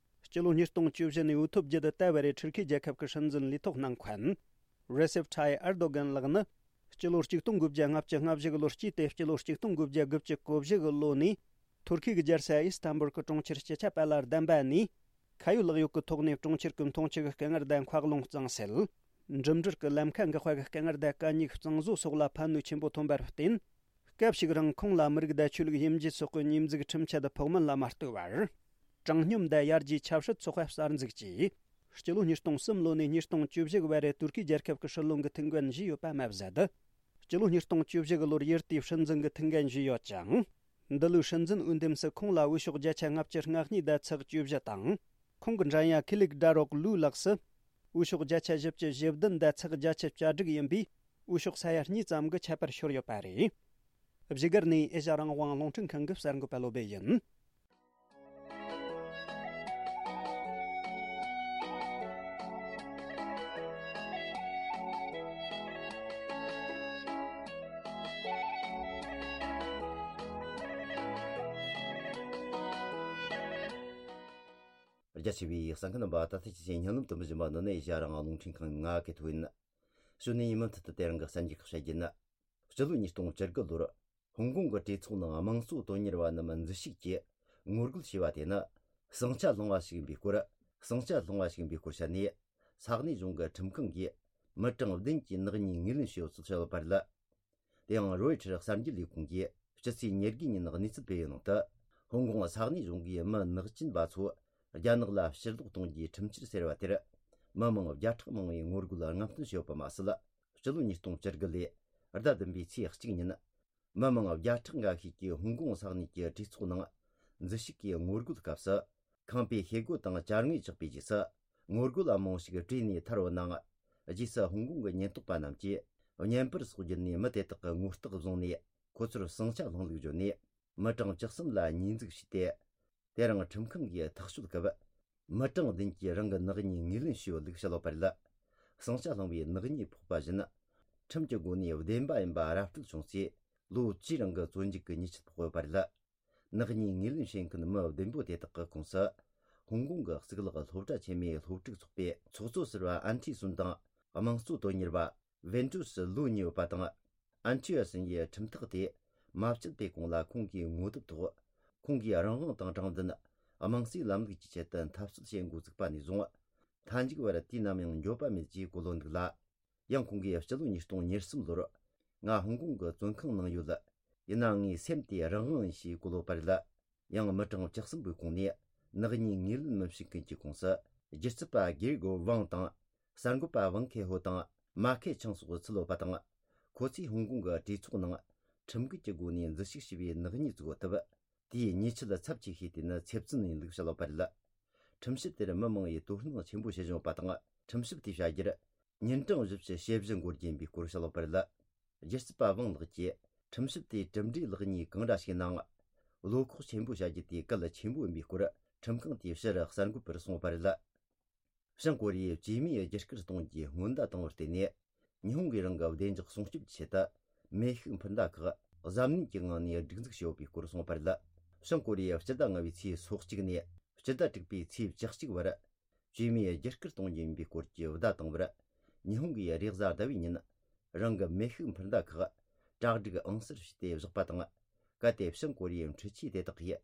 སྤྱི་ལོ་ཉིས་སྟོང་བཅུ་བཞི་ནས་འོས་ཐོབ་རྒྱུ་དང་བལྟ་བར་ཐུར་ཁེའི་རྒྱལ་ཁབ་ཀྱི་སྲིད་འཛིན་ལས་ཐོག་གནང་མཁན་རེ་སེབ་ཐའི་ཨར་དོ་གན་ལགས་ནི། སྤྱི་ལོ་ཆིག་སྟོང་དགུ་བརྒྱ་ལྔ་བཅུ་ང་བཞི་གི་ལོར་སྐྱེས་ཏེ་སྤྱི་ལོ་ཆིག་སྟོང་དགུ་བརྒྱ་དགུ་བཅུ་གོ་བཞི་གི་ལོ་ནས་ཐུར་ཁེ་གི་རྒྱལ་ས་ཨི་སི་ཐན་བུལ་གྱི་གྲོང་ཁྱེར་སྤྱི་ཁྱབ་པ་ལ་བདམས་པ་ནས། ཁ་ཡོད་ལག་ཡོད་ཀྱི་ཐོག་ནས་གྲོང་ཁྱེར་གྱི་མཐོང་ཆེན་གྱི་དཀའ་ངལ་དང་འཁོར་ལོ་གཙང་སེལ། འགྲིམ་འགྲུལ་གྱི་ལམ་ཁ་འགག་པ་གི་དཀའ་ངལ་དང་དཀའ་རྙོག་གཙང་བཟོ་སོགས་ལ་ཕན་ནུས་ཆེན་པོ་ཐོན་པར་བརྟེན། སྐབས་ཤིག་རིང་ཁོང་ལ་མི་རིགས་དང་ཆོས་ལུགས་དབྱེ་འབྱེད་སོགས་ཀྱི་ཉེས་འཛུགས་ཁྲིམས་ཆད་ཕོགས་མིན་ལ་མ་ལྟོས་པར། དྲང་སྙོམས་དང་ཡར་རྒྱས་ཆབ་སྲིད་ཚོགས་པ་གསར་འཛུགས་ཀྱིས། སྤྱི་ལོ་ཉིས་སྟོང་གསུམ་ལོ་ནས་ཉིས་སྟོང་བཅུ་བཞི་བར་ཏུར་ཀི་རྒྱལ་ཁབ་ཀྱི་སྲིད་བློན་གྱི་ཐུགས་འགན་བཞེས་ཡོད་པ་མ་ཟད། སྤྱི་ལོ་ཉིས་སྟོང་བཅུ་བཞི་གི་ལོར་ཡུལ་དེའི་སྲིད་འཛིན་གྱི་ཐུགས་འགན་བཞེས་ཡོད་ཅིང་། འདི་ལོའི་སྲིད་འཛིན་འོས་འདེམས་སུ་ཁོང་ལ་འོས་ཤོག་བརྒྱ་ཆ་ལྔ་བཅུ་ང་གཉིས་དང་ཚེག་བཅུ་བཞི་དང་། ཁོང་གི་འགྲན་ཡ་ཁི་ལིག་ཌ་རོག་ལུའུ་ལགས་སུ། འོས་ཤོག་བརྒྱ་ཆ་བཞི་བཅུ་ཞེ་བདུན་དང་ཚེག་བརྒྱད་ཅུ་གྱ་དྲུག་ཡིན་པས། འོས་ཤོག་ས་ཡ་གཉིས་ཙམ་གྱི་ཁྱད་པར་ཤོར་ཡོད་པ་རེད། བཞུགས་སྒར་ནས་ཨེ་ཤ་རང་དབང་རླུང་འཕྲིན་ཁང་གི་གསར་འགོད་པ་བློ་བྷེ་ཡིན། རྒྱ་ཆེ་བའི་གསན་མཁན་རྣམ་པ། ད་ལྟ་ཁྱེད་ཚོས་སྙན་ལམ་དུ་མི་བཞིན་པ་འདི་ནི་ཨེ་ཤ་རང་དབང་རླུང་འཕྲིན་ཁང་ང་གི་ཐོག་ཡིན། གཞུག་ནས་ཡིན་མུ་མཐུད་དུ་དེ་རིང་གི་གསར་འགྱུར་ཁག་བཤད་རྒྱུ་ཡིན། སྤྱི་ལོ་ཉིས་སྟོང་བཅུ་དགུ་ལོར་ཧོང་ཀོང་གི་གྲོས་ཚོགས་ནང་དམངས་གཙོ་དོན་གཉེར་བ་རྣམས་འཛུལ་ཞུགས་ཀྱིས་ངོ་རྒོལ་བྱས་པ་དེ་ནི་ཟིང་ཆ་སློང་བ་ཞིག་ཡིན་པའི་སྐོར། ཟིང་ཆ་སློང་བ་ཞིག་ཡིན་པའི་སྐོར་བཤད་ནས། ས་གནས་གཞུང་གི་ཁྲིམས་ཁང་གིས་མི་གྲངས་བདུན་གྱི་ནག་ཉེས་ངོས་ལེན་བྱས་ཡོད་ཚུལ་བཤད་ཡོད་པ་རེད། དེ་ཡང་རོའི་ཊར་གསར་འགྱུར་ལས་ཁུངས་ཀྱིས་སྤྱི་ཚེས་ཉེར་དགུ་ཉིན་གནས་ཚུལ་སྤེལ་ཡོད་ནང་དུ། ཧོང་ཀོང་ས་གནས་གཞུང་གིས་མི་ནག་ཅན་པ་ཚོ་རྒྱ་ནག་ལ་ཕྱིར་ལོག་གཏོང་རྒྱུའི་ཁྲིམས་གཅོད་ཟེར་བ་དེར། མི་མང་བརྒྱ་ཕྲག་མང་བས་ངོ་རྒོལ་རྔམ་སྟོན་བྱས་ཡོད་པ་མ་ཟད། སྤྱི་ལོ་ཉིས་སྟོང་བཅུ་དགུ་ལོའི་ཟླ་བདུན་པའི་ཚེས་གཅིག་ཉིན། མི་མང་བརྒྱ་ཕྲག་འགའ་ཤས་ཀྱིས་ཧོང་ཀོང་ས་གནས་ཀྱི་གྲོས་ཚོགས་ནང་འཛུལ་ཞུགས་ཀྱིས་ངོ་རྒོལ་སྐབས་སུ། ཁང་པའི་ཤེལ་སྒོ་དང་ཅ་དངོས་བཅག་པའི་རྗེས་སུ། ངོ་རྒོལ་བ་མང་པོ་ཞིག་བྲོས་ནས་ཐར་བའི་ནང་། རྗེས་སུ་ཧོང་ཀོང་གི་ཉེན་རྟོག་པ་རྣམས་ཀྱིས་བརྙན་པར་སོགས་བརྒྱུད་ནས་མི་དེ་དག་གི་ངོ་རྟགས་བཟུང་ནས། ཁོ་ཚོར་ཟིང་ཆ་སློང་ལུགས་བརྗོད་ནས། མི་གྲངས་བཅུ་གསུམ་ལ་ཉེས་འཛུགས་བྱས་ཏེ། དེ་རིང་ཁྲིམས་ཁང་གིས་ཐག་གཅོད་སྐབས། མི་གྲངས་བདུན་གྱིས་རང་གི་ནག་ཉེས་ངོས་ལེན་བྱས་ཡོད་ལུགས་བཤད་ཡོད་པ་རེད། ཟིང་ཆ་སློང་བའི་ནག་ཉེས་ཕོག་པ་བཞིན། ཁྲིམས་ཀྱི་སྒོ་ནས་བདེན་པ་ཡིན་པ་ར་སྤྲོད་བྱུང་ཚེ། ལོ་བཅུའི་རིང་གི་བཙོན་འཇུག་གི་ཉེས་ཆད་ཕོག་ཡོད་པ་རེད། ནག་ཉེས་ངོས་ལེན་བྱེད་མཁན་མི་བདུན་པོ་དེ་དག་གི་ཁོངས་སུ། ཧོང་ཀོང་གི་གཙུག་ལག་སློབ་གྲྭ་ཆེན་མོའི་སློབ་ཕྲུག་ཚོགས་པའི་ཚོགས་གཙོ་ཟུར་པ་ཨན་ཁྲི་སུན་དང་། དམངས་གཙོ་དོན་གཉེར་བ་ཝེན་ཀྲུའུ་ཧྲི་ལུའུ་གཉིས་ཡོད་པ་དང་། ཨན་ཁྲི་ཡ་སུན་ཡིས་ཁྲིམས་ཐག་དེ་མ་བཅད་པའི་གོང་ལ་ཁོང་གིས་ངོ་དེབ་ཐོག་ཁོང་གིས་རང་དབང་དང་དྲང་བདེན། དམངས་གཙོའི་ལམ་ལུགས་ཀྱི་ཆེད་དུ་འཐབ་རྩོད་བྱེད་འགོ་བཙུགས་པ་ནས་བཟུང་། མཐའ་མཇུག་བར་དུས་ནམ་ཡང་འགྱོད་པ་མེད་ཅེས་གོ་ལོ་འདུག་ལ། ཡང་ཁོང་གིས་སྤྱི་ལོ་ཉིས་སྟོང་ཉེར་གསུམ་ལོར། ང་ཧོང་ཀོང་གི་བཙོན་ཁང་ནང་ཡོད། ཡིན་ནའང་ངའི་སེམས་དེ་རང་དབང་ཡིན་ཞེས་གོ་ལོ་བ་རེད། ཡང་མི་གྲངས་བཅུ་གསུམ་པོའི་ཁོངས་ནས་ནག་ཉེས་ངོས་ལེན་མི་བྱེད་མཁན་གྱི་ཁོངས་སུ། སྒྱུ་རྩལ་པ་གེ་རི་གོ་ཝང་དང་། གསར་འགོད་པ་ཝང་ཁེ་ཧོ་དང་། མ་ཁེ་ཆང་སོགས་ཚུད་ཡོད་པ་དང་། ཁོ་ཚོས་ཧོང་ཀོང་གི་གྲོས་ཚོགས་ནང་ཁྲིམས་འགལ་གྱི་སྒོ་ནས་འཛུལ་ཞུགས་བྱས་པའི་ནག་ཉེས་བཙུགས་ཡོད་སྟབས། དེའི་ཉེས་ཆད་ཚབས་ཆེ་ཤོས་དེ་ནི་ཚེ་བཙོན་ཡིན་ལུགས་བཤད་ཡོད་པ་རེད། ཁྲིམས་ཞིབ་དེར་མི་མང་བས་དོ་སྣང་ཆེན་པོ་བྱེད་བཞིན་ཡོད་པ་དང་། ཁྲིམས་ཞིབ་དེས་བྱ་རྒྱུར། ཉིན་གྲངས་བཞི་བཅུ་ཞེ་བཞི་འགོར་རྒྱུ་ཡིན་པའི་སྐོར་བཤད་ཡོད་པ་རེད། སྒྱུ་རྩལ་པ་ཝང་ལགས་ཀྱིས། ཁྲིམས་ཞིབ་དེས་གྲུབ་འབྲས་ལེགས་ཉེས་གང་འདྲ་ཞིག་ནའང་། བློ་ཁོག་ཆེན་པོ་བྱ་རྒྱུ་དེ་གལ་ཆེན་པོ་ཡིན་པའི་སྐོར། ཁྲིམས་ཁང་དེའི་ཕྱིར་གསར་འགོད་པར་གསུངས་ཡོད་པ་རེད། བྱང་ཀོ་རི་ཡའི་བཅོས་མའི་རྒྱུ་སྐར་གཏོང་རྒྱུའི་སྔོན་བརྡ་བཏང་བར་བརྟེན་ནས། ཉི་ཧོང་གིས་རང་གི་བདེ་འཇགས་སྲུང་སྐྱོབ་ཀྱི་ཆེད་དུ། མེ་ཤུགས་འཕུར་མདའ་ཁག་གཟབ་ནན་གྱི་ངང་ནས་སྒྲིག་འཛུགས་བྱས་ཡོད་པའི་སྐོར་གསུངས་པ་རེད། བྱང་ཀོ་རི་ཡའི་སྤྱི་ཟླ་ལྔ་བའི་ཚེས་སོ་གཅིག་ནས་སྤྱི་ཟླ་དྲུག་པའི་ཚེས་བཅུ་གཅིག་བར། བཅོས་མའི་རྒྱུ་སྐར་གཏོང་རྒྱུ་ཡིན་པའི་སྐོར་གྱི་བརྡ་བཏང་བར། ཉི་ཧོང་གིས་རེས་གཟའ་ཟླ་བའི་ཉིན། རང་གི་མེ་ཤུགས་འཕུར་མདའ་ཁག་གྲ་སྒྲིག་ཨང་གསར་བྱས་ཏེ་བཞག་པ་དང་། གལ་ཏེ་བྱང་ཀོ་རི་ཡའི་འཕྲུལ་ཆས་དེ་དག་གིས་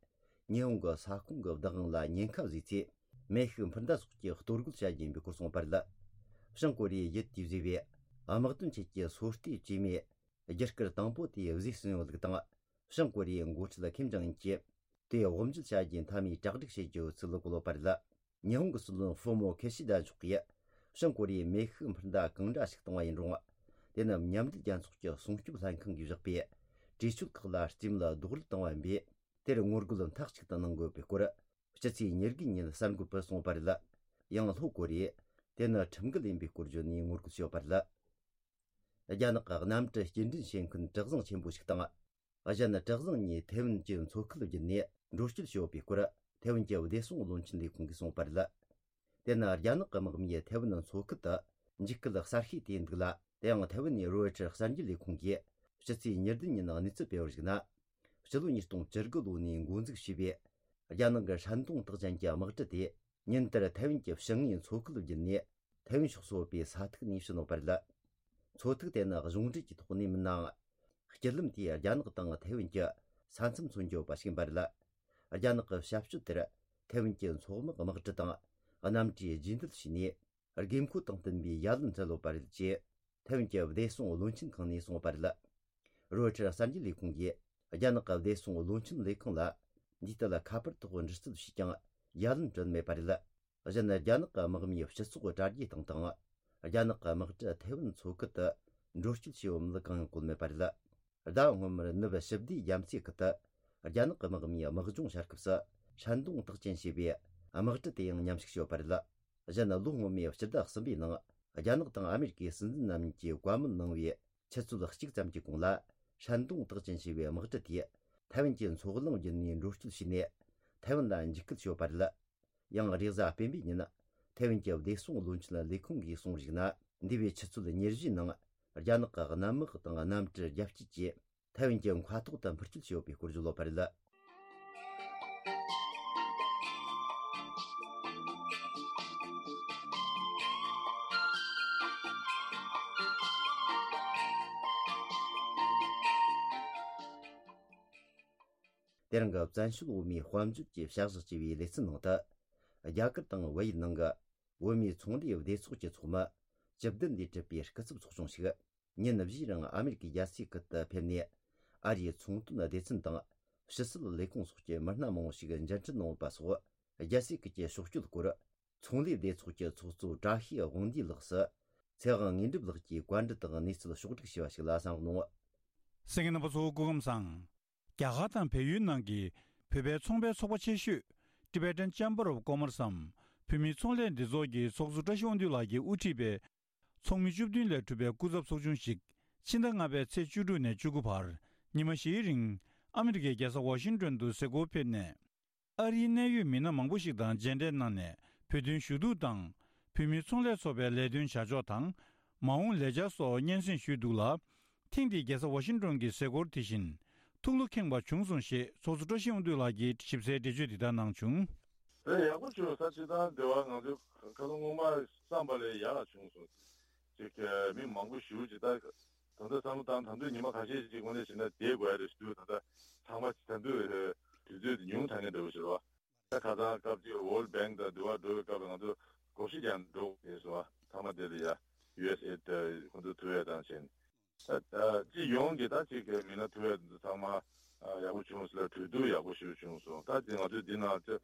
ཉི་ཧོང་གི་ས་ཁོངས་ཀྱི་བདག་དབང་ལ་ཉེན་ཁ་བཟོས་ཚེ། མེ་ཤུགས་འཕུར་མདའ་སོགས་ཀྱིས་གཏོར་རྒོལ་བྱ་རྒྱུ་ཡིན་པའི་སྐོར་གསུངས་པ་རེད། བྱང་ཀོ་རི་ཡའི་ཡུལ་དེས་བཟོས་པའི་དམག་དོན་ཆེད་ཀྱི་སོ་ལྟའི་བཅོས་མའི་རྒྱུ་སྐར་དང་པོ་དེ་བཟོས་ཟིན་ཡོད་ལུགས་དང་། བྱང་ཀོ་རི་ཡའི་འགོ་ཁྲིད་ཁིམ་ཇོང་ཨུན་གྱིས་དེ་དབུ་འབྱེད་བྱ་རྒྱུའི་མཐའ་མའི་གྲ་སྒྲིག་བྱེད་རྒྱུ་ཡོད་ཚུལ་གོ་ལོ་བ་རེད། ཉི་ཧོང་གི་སྲིད་བློན་ཧྥུ་མོ་ཁེ་ཤི་ད་མཆོག་གིས། བྱང་ཀོ་རི་ཡས་མེ་ཤུགས་འཕུར་མདའ་གང་འདྲ་ཞིག་བཏང་བ་ཡིན་རུང་། དེ་ནི་མཉམ་འབྲེལ་རྒྱལ་ཚོགས་ཀྱི་སྲུང་སྐྱོབ་ལྷན་ཁང་གིས་བཞག་པའི་གྲོས་ཆོད་ཁག་ལ་རྩིས་མེད་རྡོག་རོལ་བཏང་བ་ཡིན་པས། དེར་ངོ་རྒོལ་མཐའ་གཅིག་ཏུ་གནང་དགོས་པའི་སྐོར། སྤྱི་ཚེས་ཉེར་དགུ་ཉིན་གསར་འགོད་པར་གསུངས་པ་རེད། ཡང་ལྷོ་ཀོ་རི་ཡས་དེ་ནི་ཁྲིམས་འགལ་ཡིན་པའི་སྐོར་བརྗོད་ནས་ངོ་རྒོལ་བྱས་ཡོད་པ་རེད། རྒྱ་ནག་གི་གནམ་གྲུ་སྐྱེལ་འདྲེན་བྱེད་མཁན་གྲུ་གཟིངས་ཆེན་པོ་ཞིག་དང་། གཞན་གྲུ་གཟིངས་གཉིས་ཐེ་ཝན་གྱི་མཚོ་ཁུལ་བརྒྱུད་ནས་ འགྲོ་སྐྱོད་བྱས་ཡོད་པའི་སྐོར། ཐའེ་ཝན་གྱི་བདེ་སྲུང་བློན་ཆེན་ལས་ཁུངས་ཀྱིས་གསུངས་པ་རེད། དེ་ནི་རྒྱ་ནག་གི་དམག་མིས་ཐའེ་ཝན་མཚོ་ཁུལ་དུ་འཇིགས་སྐུལ་གསར་ཤོས་དེ་ཡིན་འདུག་ལ། དེ་ཡང་ཐའེ་ཝན་ནས་རོའི་ཊར་གསར་འགྱུར་ལས་ཁུངས་ཀྱིས་ཕྱི་ཚེས་ཉེར་བདུན་ཉིན་གནས་ཚུལ་སྤེལ་བར་གཞིགས་ན། སྤྱི་ལོ་ཉིས་སྟོང་བཅུ་དགུ་ལོ་ནས་འགོ་འཛུགས་བྱས་པའི་རྒྱ་ནག་གི་ཧྲན་ཏུང་རྟགས་ཅན་གྱི་དམག་གྲུ་དེ་ཉིན་ལྟར་ཐའེ་ཝན་གྱི་ཕྱི་ངོས་མཚོ་ཁུལ་བརྒྱུད་ནས་ཐའེ་ཝན་ཕྱོགས་སུ་ཡོད་པའི་ས་ཐིག་ནས་ཕྱིན་ཡོད་པ་རེད། མཚོ་ཐིག་དེ་ནི་གཞུང་འབྲེལ་གྱི་ཐོག་ནས་མིན་ནའང་། སྤྱི་ལམ་དེས་རྒྱ་ནག་དང་ཐའེ་ཝན་གྱི་ས་མཚམས་མཚོན་གྱི་ཡོད་པ་ཞིག་ཡིན་པ་རེད། རྒྱ་ནག་གི་བྱ་སྤྱོད་དེར་ཐའེ་ཝན་གྱི་མཚོ་དམག་དམག་གྲུ་དང་གནམ་གྲུས་རྗེས་འདེད་བྱས་ནས། དགོས་མཁོ་དང་བསྟུན་པའི་ཡ་ལན་སྤྲད་ཡོད་པ་རེད་ཅེས་ཐའེ་ཝན་གྱི་བདེ་སྲུང་བློན་ཆེན་ཁང་ནས་གསུངས་པ་རེད། རོའི་ཊར་གསར་འགྱུར་ལས་ཁུངས་ཀྱིས་རྒྱ་ནག་གི་བདེ་སྲུང་བློན་ཆེན་ལས་ཁང་ལ་འདིའི་ཐད་ཁ་པར་ཐོག་འདྲི་རྩད་བྱས་ཀྱང་ཡ་ལན་སྤྲོད་མེད་པ་རེད། གཞན། རྒྱ་ནག་གི་དམག་མིའི་སྤྱི་ཚོགས་དྲ་རྒྱའི་སྟེང་དང་། རྒྱ་ནག་གི་དམག་གྲུ་ཐའེ་ཝན་མཚོ་ཁུལ་དུ་འགྲོ་སྐྱོད་བྱས་ཡོད་མིན་གང་ཡང་བཀོད་མེད་པ་རེད། ཟླ་བ་སྔོན་མར་ནུབ་ཞི་བདེའི་རྒྱ་མཚོའི་ཁུལ་དུ་རྒྱ་ནག་གི་དམག་མིས་དམག་སྦྱོང་བྱ་སྐབས་སུ་ཧྲན་ཏུང་རྟགས་ཅན་ཞེས་པའི་དམག་གྲུ་དེ་ཡང་མཉམ་ཞུགས་བྱས་ཡོད་པ་རེད། གཞན། ལོ་སྔོན་མའི་སྤྱི་ཟླ་གསུམ་པའི་ནང་རྒྱ་ནག་དང་ཨ་མེ་རི་ཀའི་སྲིད་འཛིན་རྣམ་གཉིས་ཀྱིས་བཀའ་མོལ་གནང་བའི་ཆུ་ཚོད་གཅིག་ཙམ་གྱི་གོང་ལ། ཧྲན་ཏུང་རྟགས་ཅན་ཞེས་པའི་དམག་གྲུ་དེས་ཐའེ་ཝན་གྱི་མཚོ་གླིང་བརྒྱུད་ནས་འགྲོ་སྐྱོད་བྱས་ནས། ཐའེ་ཝན་ལ་འཇིགས་སྐུལ་བྱས་ཡོད་པ་རེད། ཡང་། རེས་གཟའ་སྤེན་པའི་ཉིན། ཐའེ་ཝན་གྱི་བདེ་སྲུང་བློན་ཆེན་ལས་ཁུངས་ཀྱིས་གསུངས་པར་གཞིགས་ན། འདས་པའི་ཆུ་ཚོད་ཉེར་བཞིའི་ནང་། རྒྱ་ནག་གི་གནམ་དམག་དང་གནམ་གྲུ་རྒྱ་སྐྱེད་ཀྱིས་ཐའེ་ཝན་གྱི་མཁའ་ཐོག་ཏུ་འཕུར་སྐྱོད་བྱས་ཡོད་པའི་སྐོར་བརྗོད་ཡོད་པ་རེད། དེ་རིང་གི་བཙན་བྱོལ་བོད་མིའི་དཔལ་འབྱོར་གྱི་བྱ་གཞག་ཅེས་པའི་ལེ་ཚན་ནང་དུ། རྒྱ་གར་དང་བལ་ཡུལ་ནང་གི་བོད་མིའི་ཚོང་ལས་སྡེ་ཚོགས་ཀྱི་ཚོགས་མི་བཅུ་བདུན་ལས་གྲུབ་པའི་སྐུ་ཚབ་ཚོགས་ཆུང་ཞིག་ཉིན་བཞིའི་རིང་ཨ་མེ་རི་ཀའི་རྒྱལ་སའི་ཁུལ་དུ་ཕེབས་ནས། ཨ་རིའི་ཚོང་དོན་སྡེ་ཚན་དང་ཕྱི་སྲིད་ལས་ཁུངས་སོགས་ཀྱི་མི་སྣ་མང་བོ་ཞིག་མཇལ་འཕྲད་གནང་ཡོད་པ་སོགས། རྒྱལ་སའི་ཁུལ་གྱི་ཕྱོགས་བསྐྱོད་སྐོར། ཚོང་ལས་སྡེ་ཚོགས་ཀྱི་ཚོགས་གཙོ་བཀྲ་ཤིས་དབང་འདུས་ལགས་སུ། ཚེ་དབང་དངོས་གྲུབ་ལགས་ཀྱིས་བཀའ་འདྲི་དང་གནས་ཚུལ་ཕྱོགས་བསྒྲིགས་བྱས་པ་ཞིག་ལ་གསན་རོགས་གནང་། གསན་མཁན་རྣམ་པ་ཚོ་སྐུ་ཁམས་བཟང་། རྒྱ་གར་དང་བལ་ཡུལ་ནང་གི་བོད་པའི་ཚོང་པའི་ཚོགས་པ་ཆེ་ཤོས་Tibetan Chamber of Commerce་འམ་བོད་མིའི་ཚོང་ལས་སྡེ་ཚོགས་ཀྱི་ཚོགས་གཙོ་བཀྲ་ཤིས་དབང་འདུས་ལགས་ཀྱིས་དབུ་ཁྲིད་པའི་ཚོགས་མི་བཅུ་བདུན་ལས་གྲུབ་པའི་སྐུ་ཚབ་ཚོགས་ཆུང་ཞིག་ཕྱི་ཟླ་ལྔ་པའི་ཚེས་བཅུ་དྲུག་ནས་བཅུ་དགུ་བར་ཉི་མ་བཞིའི་རིང་ཨ་མི་རི་ཀའི་རྒྱལ་ས་ཝ་ཤིང་ཏོན་དུ་གཟིགས་སྐོར་ཕེབས་ནས། ཨ་རིའི་གནད་ཡོད་མི་སྣ་མང་པོ་ཞིག་དང་མཇལ་འཕྲད་གནང་ནས་བོད་དོན་ཞུ་གཏུག་དང་། བོད་མིའི་ཚོང་ལས་ཚོགས་པའི་ལས་དོན་བྱ་ཕྱོགས་དང་། མ་འོངས་ལས་འཆར་སོགས་སྙན་སེང་ཞུས་འདུག་ལ། ཐེངས་འདིའི་རྒྱལ་ས་ཝ་ཤིང་ཏོན་གྱི་གཟིགས་སྐོར་དེ་བཞིན་ཐུགས་བློ་ཁེངས་པ་བྱུང་སོང་ཞེས་ཚོགས་གཙོ་བཀྲ་ཤིས་དབང་འདུས་ལགས་ཀྱིས་ཞིབ་གསལ་འགྲེལ་བརྗོད་འདི་ལྟར་གནང་བྱུང་། དེ་ཡག་པོ་བྱུང་ས། སྤྱིར་བཏང་འདི་བ་ང་ཚོས་ཁ་སང་སྔོན་མ་བསམ་པ་ལས་ཡག་བྱུང་སོང་། ཅིག་མི་མང་པོ་ཞེ་པོ་ཅིག་ད། ད་ལྟ་བསམ་བློ་བཏང་། ད་དུང་ཉི་མ་ཁ་ཤས་ཅིག་དངོས་གནས་བྱས་ན་བསྡད་དགོས་ཡ་རེད་ཞུ་དུས། ད་ལྟ་ཚང་མ་ད་དུང་དུས་ཚོད་དེ་ཉུང་དྲགས་མཁན་འདྲ་པོ་ཞིག་རེད་བ། ད་ཁ་སང་སྐབས་ཅིག་World Bank་དང་འདི་བ་འགྲོ་བའི་སྐབས་ང་ཚོ་སྒོར་གཞས་རྒྱག་འགྲོ་དགོས་སོང་བ། ཚང་མ་དེ་ལ་ཡ་ཡུ་ཨེས་ཨེ་ཌི་ཁོང་ཚོ་ཐུག་ཡ་དང་བྱས་ནས། ད་ད་སྤྱི་ཡོངས་ཀྱི་ད་ཅིག་མི་སྣ་ཐུག་ཡ་དེ་ཚོ་ཚང་མ་ཡག་པོ་བྱུང་ཟེར་ལ་གྲོས་བསྡུར་ཡག་པོ་ཞིག་བྱུང་སོང་། ད་དེ་ང་ཚོས་འདི་ནང་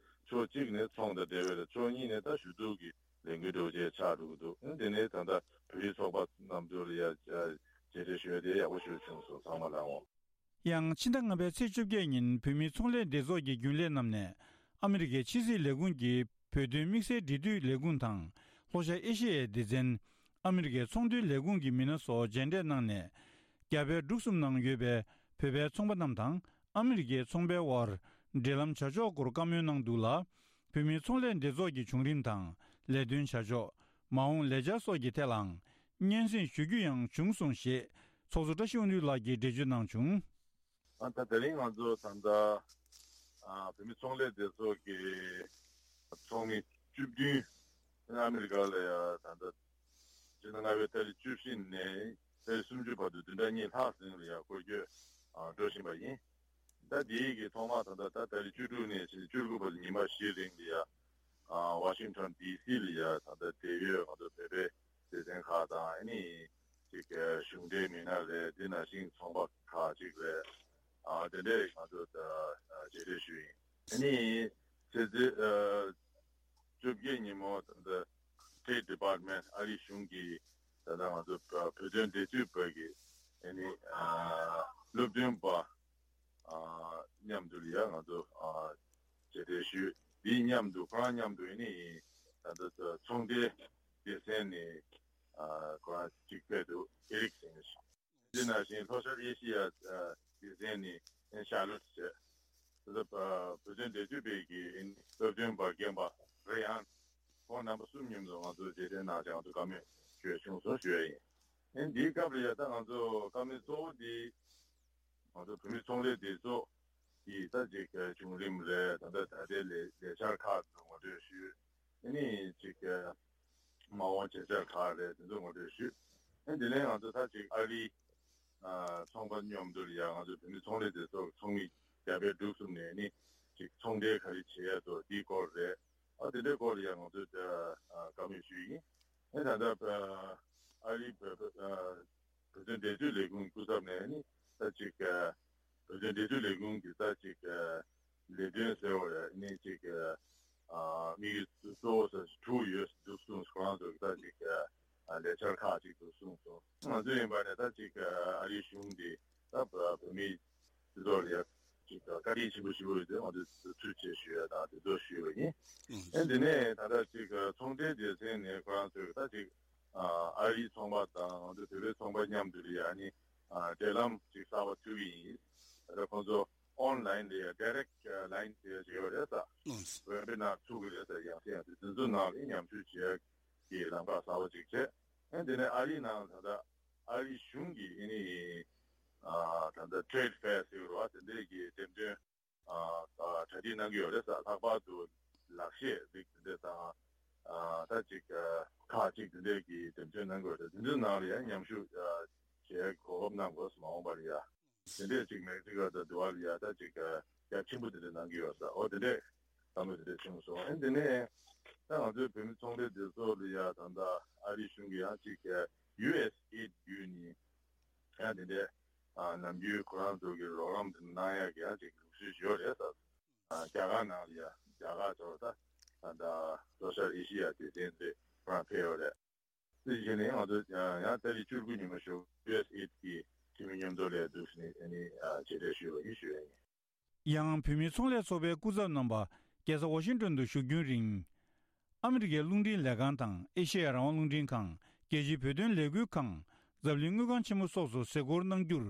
ཕྱོགས་གཅིག་ནས་ཚོང་དང་འབྲེལ་བའི་རེད། ཕྱོགས་གཉིས་ནས་ད་ཞུ་གཏུག་གི་ལས་འགུལ་འདྲ་པོ་ཅིག་ཆགས་འགྲོ་གི་འདུག་ཨ་ནི་དེ་ནས་ད་ལྟ་བོད་རིགས་ཚོགས་པ་རྣམས་ཚོ་ལ་ཡ་མཇལ་འཕྲད་ཞུ་ཡ་དེ་ཡག་པོ་ཞིག་བྱུང་སོང་། ཚང་མ་ལའང་། ཡང་ཕྱི་ཟླ་ལྔ་པའི་ཚེས་བཅོ་བརྒྱད་ཉིན་བོད་མིའི་ཚོང་ལས་སྡེ་ཚོགས་ཀྱི་རྒྱུན་ལས་རྣམས་ནས་ཨ་མི་རི་ཀའི་ཕྱི་སྲིད་ལས་ཁུངས་ཀྱི་བོད་དོན་དམིགས་བསལ་འབྲེལ་མཐུད་ལས་ཁུངས་དང་ལྷོ་ཤར་ཨེ་ཤེ་ཡའི་སྡེ་ཚན། ཨ་མི་རི་ཀའི་ཚོང་དོན་ལས་ཁུངས་ཀྱི་མི་སྣ་སོགས་མཇལ་འཕྲད་གནང་ནས། རྒྱ་བལ་འབྲུག་གསུམ་ནང་ཡོད་པའི་བོད་པའི་ཚོང་པ་རྣམས་དང་ཨ་མི་རི་ཀའི་ཚོང་པའི་དབར་འབྲེལ་ལམ་བྱ་ཕྱོགས་སྐོར་བཀའ་མོལ་གནང་འདུག་ལ། བོད་མིའི་ཚོང་ལས་སྡེ་ཚོགས་ཀྱི་བྱུང་རིམ་དང་ལས་དོན་བྱ་ཕྱོགས། མ་འོངས་ལས་འཆར་སོགས་ཀྱི་ཐད་ལའང་སྙན་སེང་ཞུ་རྒྱུ་ཡང་བྱུང་སོང་ཞེས་ཚོགས་གཙོ་བཀྲ་ཤིས་དབང་འདུས་ལགས་ཀྱིས་འགྲེལ་བརྗོད་གནང་བྱུང་། ཨ་ད་དེ་རིང་ང་ཚོ་ད་ལྟ་ཨ་བོད་མི་ཚོང་ལས་སྡེ་ཚོགས་ཀྱི་ཚོགས་མི་བཅུ་བདུན་ཨ་མི་རི་ཀ་ལ་ཡ་ད་ལྟ་ཕྱི་ཟླ་ལྔ་པའི་ཏ་རིག་བཅུ་བཞི་ནས་ཏ་རིག་སུམ་ཅུ་བར་དུ་བདུན་ཕྲག་གཉིས་ལྷག་རིང་ལ་ཡ་སྐོར་སྐྱོད་ཨ་འགྲོ་བཞིན་པ་ཡིན། ད་དེའི་གི་ཐོག་མ་ད་ལྟ་ད་ཏ་རིག་བཅུ་དྲུག་ནས་བཅུ་དགུ་བར་ཉི་མ་བཞི་རིང་ལ་ཡ་ཨ་ཝ་ཤིང་ཊོན་ཌི་སི་ལ་ཡ་ད་ལྟ་འབྲེལ་ཡོད་ང་ཚོ་བོད་པའི་སྡེ་ཚན་ཁག་དང་ཨ་ནི་ཅིག་གཞུང་འབྲེལ་མི་སྣ་རེད། དེ་ནང་བཞིན་ཚོང་པ་ཁག་ཅིག་རེད། ཨ་དེ་འདྲས་ང་ཚོ་ད་མཇལ་འཕྲད་ཞུས་ཡིན། ཨ་ནི་ཚེས་བཅོ་བརྒྱད་ཉིན་མོ་ད་ལྟ་State Department་ཨ་རིའི་གཞུང་གི་ད་ལྟ་ང་ཚོ་བོད་དོན་འབྲེལ་མཐུད་པ་གི་ཨ་ནི་ཨ་སློབ་སྟོན་པ་ཨ་མཉམ་དུ་ལ་ཡ་ང་ཚོ་ཨ་མཇལ་འཕྲད་ཞུས། དེའི་མཉམ་དུ་ཁོ་རང་མཉམ་དུ་ཨ་ནི་ད་ལྟ་ཚོང་འབྲེལ་སྡེ་ཚན་ནས་ཨ་ཁོ་རང་གཅིག་ཕེབས་འདུག་ཨེ་རིག་ཟེར་མཁན་ཞིག་དེ་ནང་བཞིན་ལྷོ་ཤར་ཨེ་ཤི་ཡ་སྡེ་ཚན་ནས་ཤར་ལོཊ་བྱས། དེ་ཚོ་བོད་དོན་འབྲེལ་མཐུད་པའི་གི་སྟབས་བསྟུན་པ་རྒན་པ་རེ་ཡང་ཁོང་རྣམ་པ་གསུམ་མཉམ་དུ་ང་ཚོ་རྗེས་དྲན་གནང་བྱས་ང་ཚོ་བཀའ་མོལ་ཞུ་ཡ་བྱུང་སོང་ཞུ་ཡ་ཡིན། ཨེ་འདིའི་སྐབས་ལ་ཡ་ད་ང་ཚོ་བཀའ་མོལ་གཙོ་བོ་འདི་ང་ཚོ་བོད་མི་ཚོང་ལས་སྡེ་ཚོགས་ཀྱི་ད་ཅིག་བྱུང་རིམ་རེད། ད་ལྟ་ད་ལྟའི་ལས་ལས་འཆར་ཁག་ཏུ་ངོ་སྤྲོད་ཞུས། ཨ་ནི་ཅིག་མ་འོངས་བྱེད་འཆར་ཁག་རེད། དེ་ཚོ་ངོ་སྤྲོད་ཞུས། ཨ་ནི་དེ་ནས་ང་ཚོ་ད་ཅིག་ཨ་རིའི་ཚོང་པ་མཉམ་དུ་ལ་ཡ་ང་ཚོ་བོད་མི་ཚོང་ལས་སྡེ་ཚོགས་ཀྱི་ཚོགས་མི་རྒྱ་བལ་འབྲུག་གསུམ་ནས་ནི་ཅིག་ཚོང་འབྲེལ་ག་རེ་བྱེད་ཡ་འདུག་འདིའི་སྐོར་རེད། ཨ་དེ་འདྲའི་སྐོར་ལ་ཡ་ང་ཚོས་བཀའ་མོལ་ཞུས་ཡིན། ཨ་ད་ལྟ་ཨ་རིའི་བོད་བོད་བོད་དོན་འབྲེལ་མཐུད་ལས་ཁུངས་སྐུ་ཚབ་ནས་ནི་ད་ཅིག་བོད་དོན་འབྲེལ་མཐུད་ལས་ཁུངས་ཀྱི་ད་ཅིག་ལས་དོན་ཟེར་བ་ཡ་ནི་ཅིག་དམིགས་ཡུལ་གཙོ་བོ་ཟེར་དྲུག་ཡོད་འདུག་གསུངས། ཁོ་རང་ཚོ་གི་ད་ཅིག་ལས་འཆར་ཁག་ཅིག་འདུག་གསུངས་སོང་། ང་ཚོ་ཡིན་པ་ནས་ད་ཅིག་ཨ་རིའི་གཞུང་འདི་ད་བོད་མི་སྤྱི་ཚོགས་ལ་ཡ་ཅིག་བཀའ་དྲིན་ཆེན་པོ་ཞུ་དགོས་ཡོད་དེ་ང་ཚོས་ཐུགས་རྗེ་ཆེ་ཞུ་ཡ་དང་དེ་ཚོ་ཞུས་པ་ཡིན། ཨེ་འདི་ནས་ད་ལྟ་ཅིག་ཚོང་འབྲེལ་སྡེ་ཚན་ནས་ཁོ་རང་ཚོས་ད་ཅིག་ཨ་རིའི་ཚོང་པ་དང་ང་ཚོ་བོད་པའི་ཚོང་པ་མཉམ་དུ་ལ་ཡ་ནི་ཨ་འབྲེལ་ལམ་ཅིག་གསར་པ་བཙུགས་ཀྱི་ཡིན། ད་ལྟ་ཁོང་ཚོ་ཨོན་ལན་ལ་ཡ་ཌའི་རེག་ལན་ཟེར་ཡ་ཅིག་ཡོད་རེད་ས། ཝེ་བི་ནར་ཚུགས་ཀྱི་རེད་ས། ཡང་སེ་ཡང་སེ་དེ་ཚོ་ནང་ལ་མཉམ་ཞུགས་བྱེད་ཡ་གི་ལམ་ཁ་གསར་པ་ཅིག་བྱས། ཨེ་འདི་ནས་ཨ་རིའི་ནང་ད་ལྟ་ཨ་རིའི་གཞུང་གིས་ཨེ་ནི་ཨ་ད་ལྟ་ཊེ་རེད་ཕེར་ཟེར་གྱི་རེད་བ། དེ་འདྲས་ཀྱི་འགྲེམས་སྟོན་ཨ་ཨ་གྲ་སྒྲིག་གནང་གི་ཡོད་རེད་ས། ལྷག་པར་དུ་ལག་ཤེས་རིགས་དེ་འདྲས་དང་ཨ་ད་ཅིག་ཨ་ཁག་ཅིག་དེ་འདྲས་ཀྱི་འགྲེམས་སྟོན་གནང་གི་ཡོད་རེད། དེ་ཚོའི་ནང་ལ་ཡང་མཉམ་ཞུགས་ཨ་བྱེད་གོ་སྐབས་གནང་དགོས་སོ། མ་འོངས་པར་ཡ། དེ་འདྲས་ཅིག་མེག་སི་ཀོ་དང་དུ་བ་ལ་ཡ་ད་ཅིག་རྒྱ་ཆེན་པོ་དེ་འདྲས་གནང་གི་ཡོད་ས། འོ་དེ་འདྲས་བསམ་བློ་དེ་འདྲས་བྱུང་སོང་། ཨ་ནི་དེ་ནས་ད་ང་ཚོའི་བོད་མི་ཚོང་ལས་སྡེ་ཚོགས་ལ་ཡ་ད་ལྟ་ཨ་རིའི་གཞུང་གི་ཡང་ཅིག་ཡུ་ཨེས་ཨེ་ཌི་བརྒྱུད་ནས་ཡང་དེ་འདྲས་ཨ་ནམ་རྒྱུན་ཁོ་རང་ཚོ་གི་རོགས་རམ་དེ་གནང་ཡ་གི་ཡང་ཅིག་ལུགས་སྲོལ་ཡོད་རེད་ས། ཨ་རྒྱ་གར་ནང་ལ་ཡ་རྒྱ་གར་ཚོ་ད་ད་ལྟ་ལྷོ་ཤར་ཨེ་ཤི་ཡ་སྡེ་ཚན་དེ་ཁོ་རང་ཕེབས་ཡོད་རེད། དེ་བཞིན་ནས་ང་ཚོ་ཡང་ཏ་རིག་བཅུ་དགུ་ཉི་མ་ཞོགས་ཡུ་ཨེས་ཨེ་ཌི་གི་འཐུས་མི་མཉམ་དུ་ལས་འདུག་ནས་ཨ་ནི་ཨ་མཇལ་འཕྲད་ཞུས་པ་ཡིན་ཞུ་ཡ་ཡིན། ཡང་བོད་མིའི་ཚོང་ལས་ཚོགས་པའི་སྐུ་ཚབ་རྣམ་པ་རྒྱལ་ས་ཝ་ཤིང་ཏོན་དུ་བཞུགས་རྒྱུན་རིང་། ཨ་མི་རི་ཀའི་རླུང་འཕྲིན་ལས་ཁང་དང་ཨེ་ཤེ་ཡ་རང་དབང་རླུང་འཕྲིན་ཁང་། རྒྱལ་སྤྱིའི་བོད་དོན་ལས་འགུལ་ཁང་། འཛམ་གླིང་དངུལ་ཁང་ཆེན་མོ་སོགས་སུ་གཟིགས་སྐོར་གནང་རྒྱུར།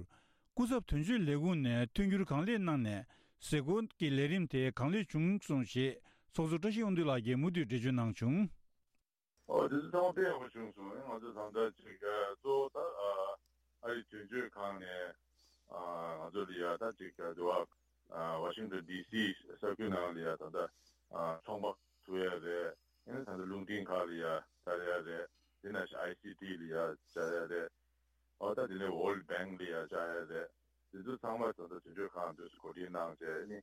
སྐུ་ཚབ་དོན་གཅོད་ལས་ཁུངས་ནས་མཐུན་འགྱུར་གང་ལེགས་གནང་ནས་གཟིགས་སྐོར་གྱི་ལས་རིམ་དེ་གང་ལེགས་བྱུང་སོང་ཞེས་ཚོགས་གཙོ་བཀྲ་ཤིས་དབང་འདུས་ལགས་ཀྱིས་མུ་མཐུད་འགྲེལ་བརྗོད་གནང་བྱུང་། ཨོ་དེ་ཚོ་ཚང་མ་དཔེ་ཡག་པོ་བྱུང་སོང་། ང་ཚོ་ད་ལྟ་ཅིག་གཙོ་བོ་ད་ཨ་རིའི་དོན་གཅོད་ཁང་ནས་ང་ཚོ་ལ་ཡ་ད་ཅིག་འདི་བ་ཝ་ཤིང་ཏོན་ཌི་སི་ས་ཁུལ་ནང་ལ་ཡ་ད་ལྟ་ཚོང་པ་ཐུག་ཡ་རེད། ཨ་ནི་ད་ལྟ་རླུང་འཕྲིན་ཁག་ལ་ཡ་བཅར་ཡ་རེད། དེ་ནང་བཞིན་ཨའི་སི་ཊི་ལ་ཡ་བཅར་ཡ་རེད། ཨོ་ད་དེ་ནས་ཝོལཌ་བེང་ལ་ཡ་བཅར་ཡ་རེད། དེ་ཚོ་ཚང་མ་ད་ལྟ་དོན་གཅོད་ཁང་དུ་གོ་སྒྲིག་གནང་བྱས་ནི་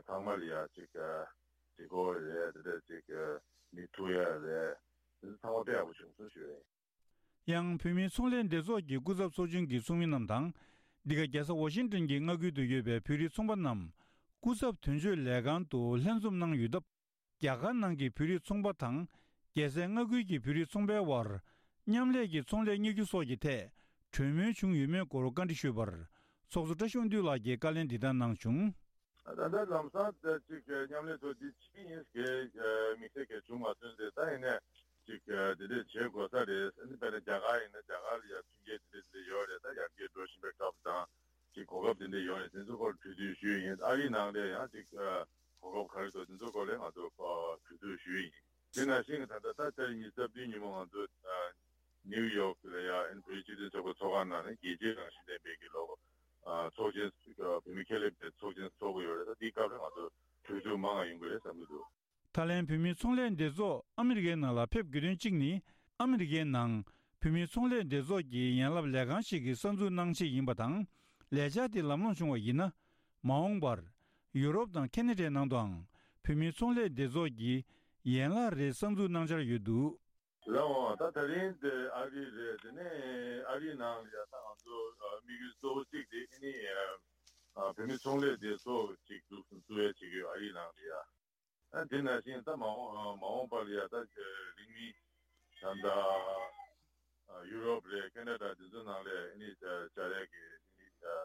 ཚང་མ་ལ་ཡ་ཅིག་གཟིགས་སྐོར་རེད། དེ་འདྲ་ཅིག་མི་ཐུག་ཡ་རེད། དེ་ཚོ་ཚང་མ་དཔེ་ཡག་པོ་བྱུང་སོང་ཞུ་ཡ་ཡིན། ཡང་བོད་མིའི་ཚོང་ལས་སྡེ་ཚོགས་ཀྱི་སྐུ་ཚབ་ཚོགས་ཆུང་གི་ཚོགས་མི་རྣམས་དང་། འདི་ག་རྒྱལ་ས་ཝ་ཤིང་ཏོན་གྱི་མངའ་ཁུལ་དུ་ཡོད་པའི་བོད་རིགས་ཚོང་པ་རྣམས་སྐུ་ཚབ་དོན་གཅོད་ལས་ཁང་དུ་ལྷན་འཛོམས་གནང་ཡོད་སྟབས། རྒྱ་གར་ནང་གི་བོད་རིགས་ཚོང་པ་དང་། རྒྱལ་སའི་མངའ་ཁུལ་གྱི་བོད་རིགས་ཚོང་པའི་དབར་མཉམ་ལས་ཀྱི་ཚོང་ལས་གཉེར་རྒྱུ་སོགས་ཀྱི་ཐད་གྲོས་མོལ་བྱུང་ཡོད་མེད་སྐོར་བཀའ་འདྲི་ཞུས་པར། ཚོགས་གཙོ་བཀྲ་ཤིས་དབང་འདུས་ལགས་ཀྱིས་བཀའ་ལན་འདི་ལྟར་གནང་བྱུང་། ད་ལྟ་ལམ་སང་ད་ཅིག་མཉམ་ལས་ཚོ་འདི་ཕྱིན་ཡིན་གྱི་དམིགས་བསལ་གྱི་བྱུང་མ་སོང་ཟེར། ད་ཡིན་ནས་ཅིག་དེ་འདྲས་བྱེད་དགོས་ས་རེད། ཨ་ནི་དཔེར་ན་རྒྱ་གར་ཡིན་ན་རྒྱ་གར་ལ་ཡ་མཐུན་རྐྱེན་དེ་འདྲས་དེ་འདྲས་ཡོད་རེད། ད་ཡར་རྒྱས་འགྲོ་བཞིན་པའི་སྐབས་དང་། ཅིག་གོ་སྐབས་དེ་འདྲ་ཡོད་རེད། དེ་ཚོ་སྐོར་གྲོས་བསྡུར་ཞུས་ཡིན། ཨ་རིའི་ནང་ལ་ཡང་ཅིག་ཨ་གོ་སྐབས་ག་རེ་འདུག་དེ་ཚོ་སྐོར་ལ་ང་ཚོ་ཨ་གྲོས་བསྡུར་ཞུས་ཡིན། དེ་ནང་བཞིན་ད་ལྟ་ད་ལྟ་ཉི་ཤུ་རྩ་བདུན་ཉིན་མོ་ང་ཚོ་ཨ་ནིའུ་ཡོག་ལ་ཡ་ཨན་བོད་སྤྱི་མཐུན་ཚོགས་པ་ཚོགས་ཁང་ནང་ནས་རྒྱལ་སྤྱིའི་རང་བཞིན་ལྡན་པའི་གི་ལོ་ཨ་ཚོགས་ཆེན་ཨ་བོད་མི་ཁེ་ལས་པའི་ཚོགས་ཆེན་ཚོགས་ཀྱི་ཡོད་རེད། ད་འདིའི་སྐབས་ལ་ང་ཚོ་གྲོས་བསྡུར་མང་ང་ཡོང་གི་རེད་བསམ་གྱི་འདུག་ཐའི་ལེན་བོད་མིའི་ཚོང་ལས་སྡེ་ཚོགས་ཨ་མི་རི་ཀའི་ནང་ལ་ཕེབས་དགོས་དོན་གཅིག་ནི། ཨ་མི་རི་ཀའི་ནང་བོད་མིའི་ཚོང་ལས་སྡེ་ཚོགས་ཀྱི་ཡན་ལག་ལས་ཁང་ཞིག་གི་གསར་འཛུགས་གནང་ཆེད་ཡིན་པ་དང་། ལས་འཆར་དེ་ལམ་ལྷོང་བྱུང་བ་ཡིན་ན། མ་འོངས་པར་ཡུ་རོབ་དང་ཁེ་ན་ཌའི་ནང་དུའང་བོད་མིའི་ཚོང་ལས་སྡེ་ཚོགས་ཀྱི་ཡན་ལག་རེ་གསར་འཛུགས་གནང་འཆར་ཡོད་འདུག་ལགས་འོང་། ད་ད་རིང་དེ་ཨ་རི་རེད། དེ་ནས་ཨ་རིའི་ནང་ལ་ཡ་ད་ང་ཚོ་དམིགས་ཡུལ་གཙོ་བོ་གཅིག་དེ་ཨ་ནི་བོད་མིའི་ཚོང་ལས་སྡེ་ཚོགས་ཅིག་འཛུགས་འཛུགས་ཡ་བྱེད་ཀྱི་ཡོད་ཨ་རིའི་ནང་ལ་ཡ། ཨ་དེ་ནང་བཞིན་ད་མ་འོངས་མ་འོངས་པ་ལ་ཡ་ད་རིང་མིན་ད་ལྟ་ཡུ་རོབ་རེད། ཁེ་ན་ཌ་དེ་ཚོ་ནང་ལ་ཨ་ནི་བཅར་ཡ་གི་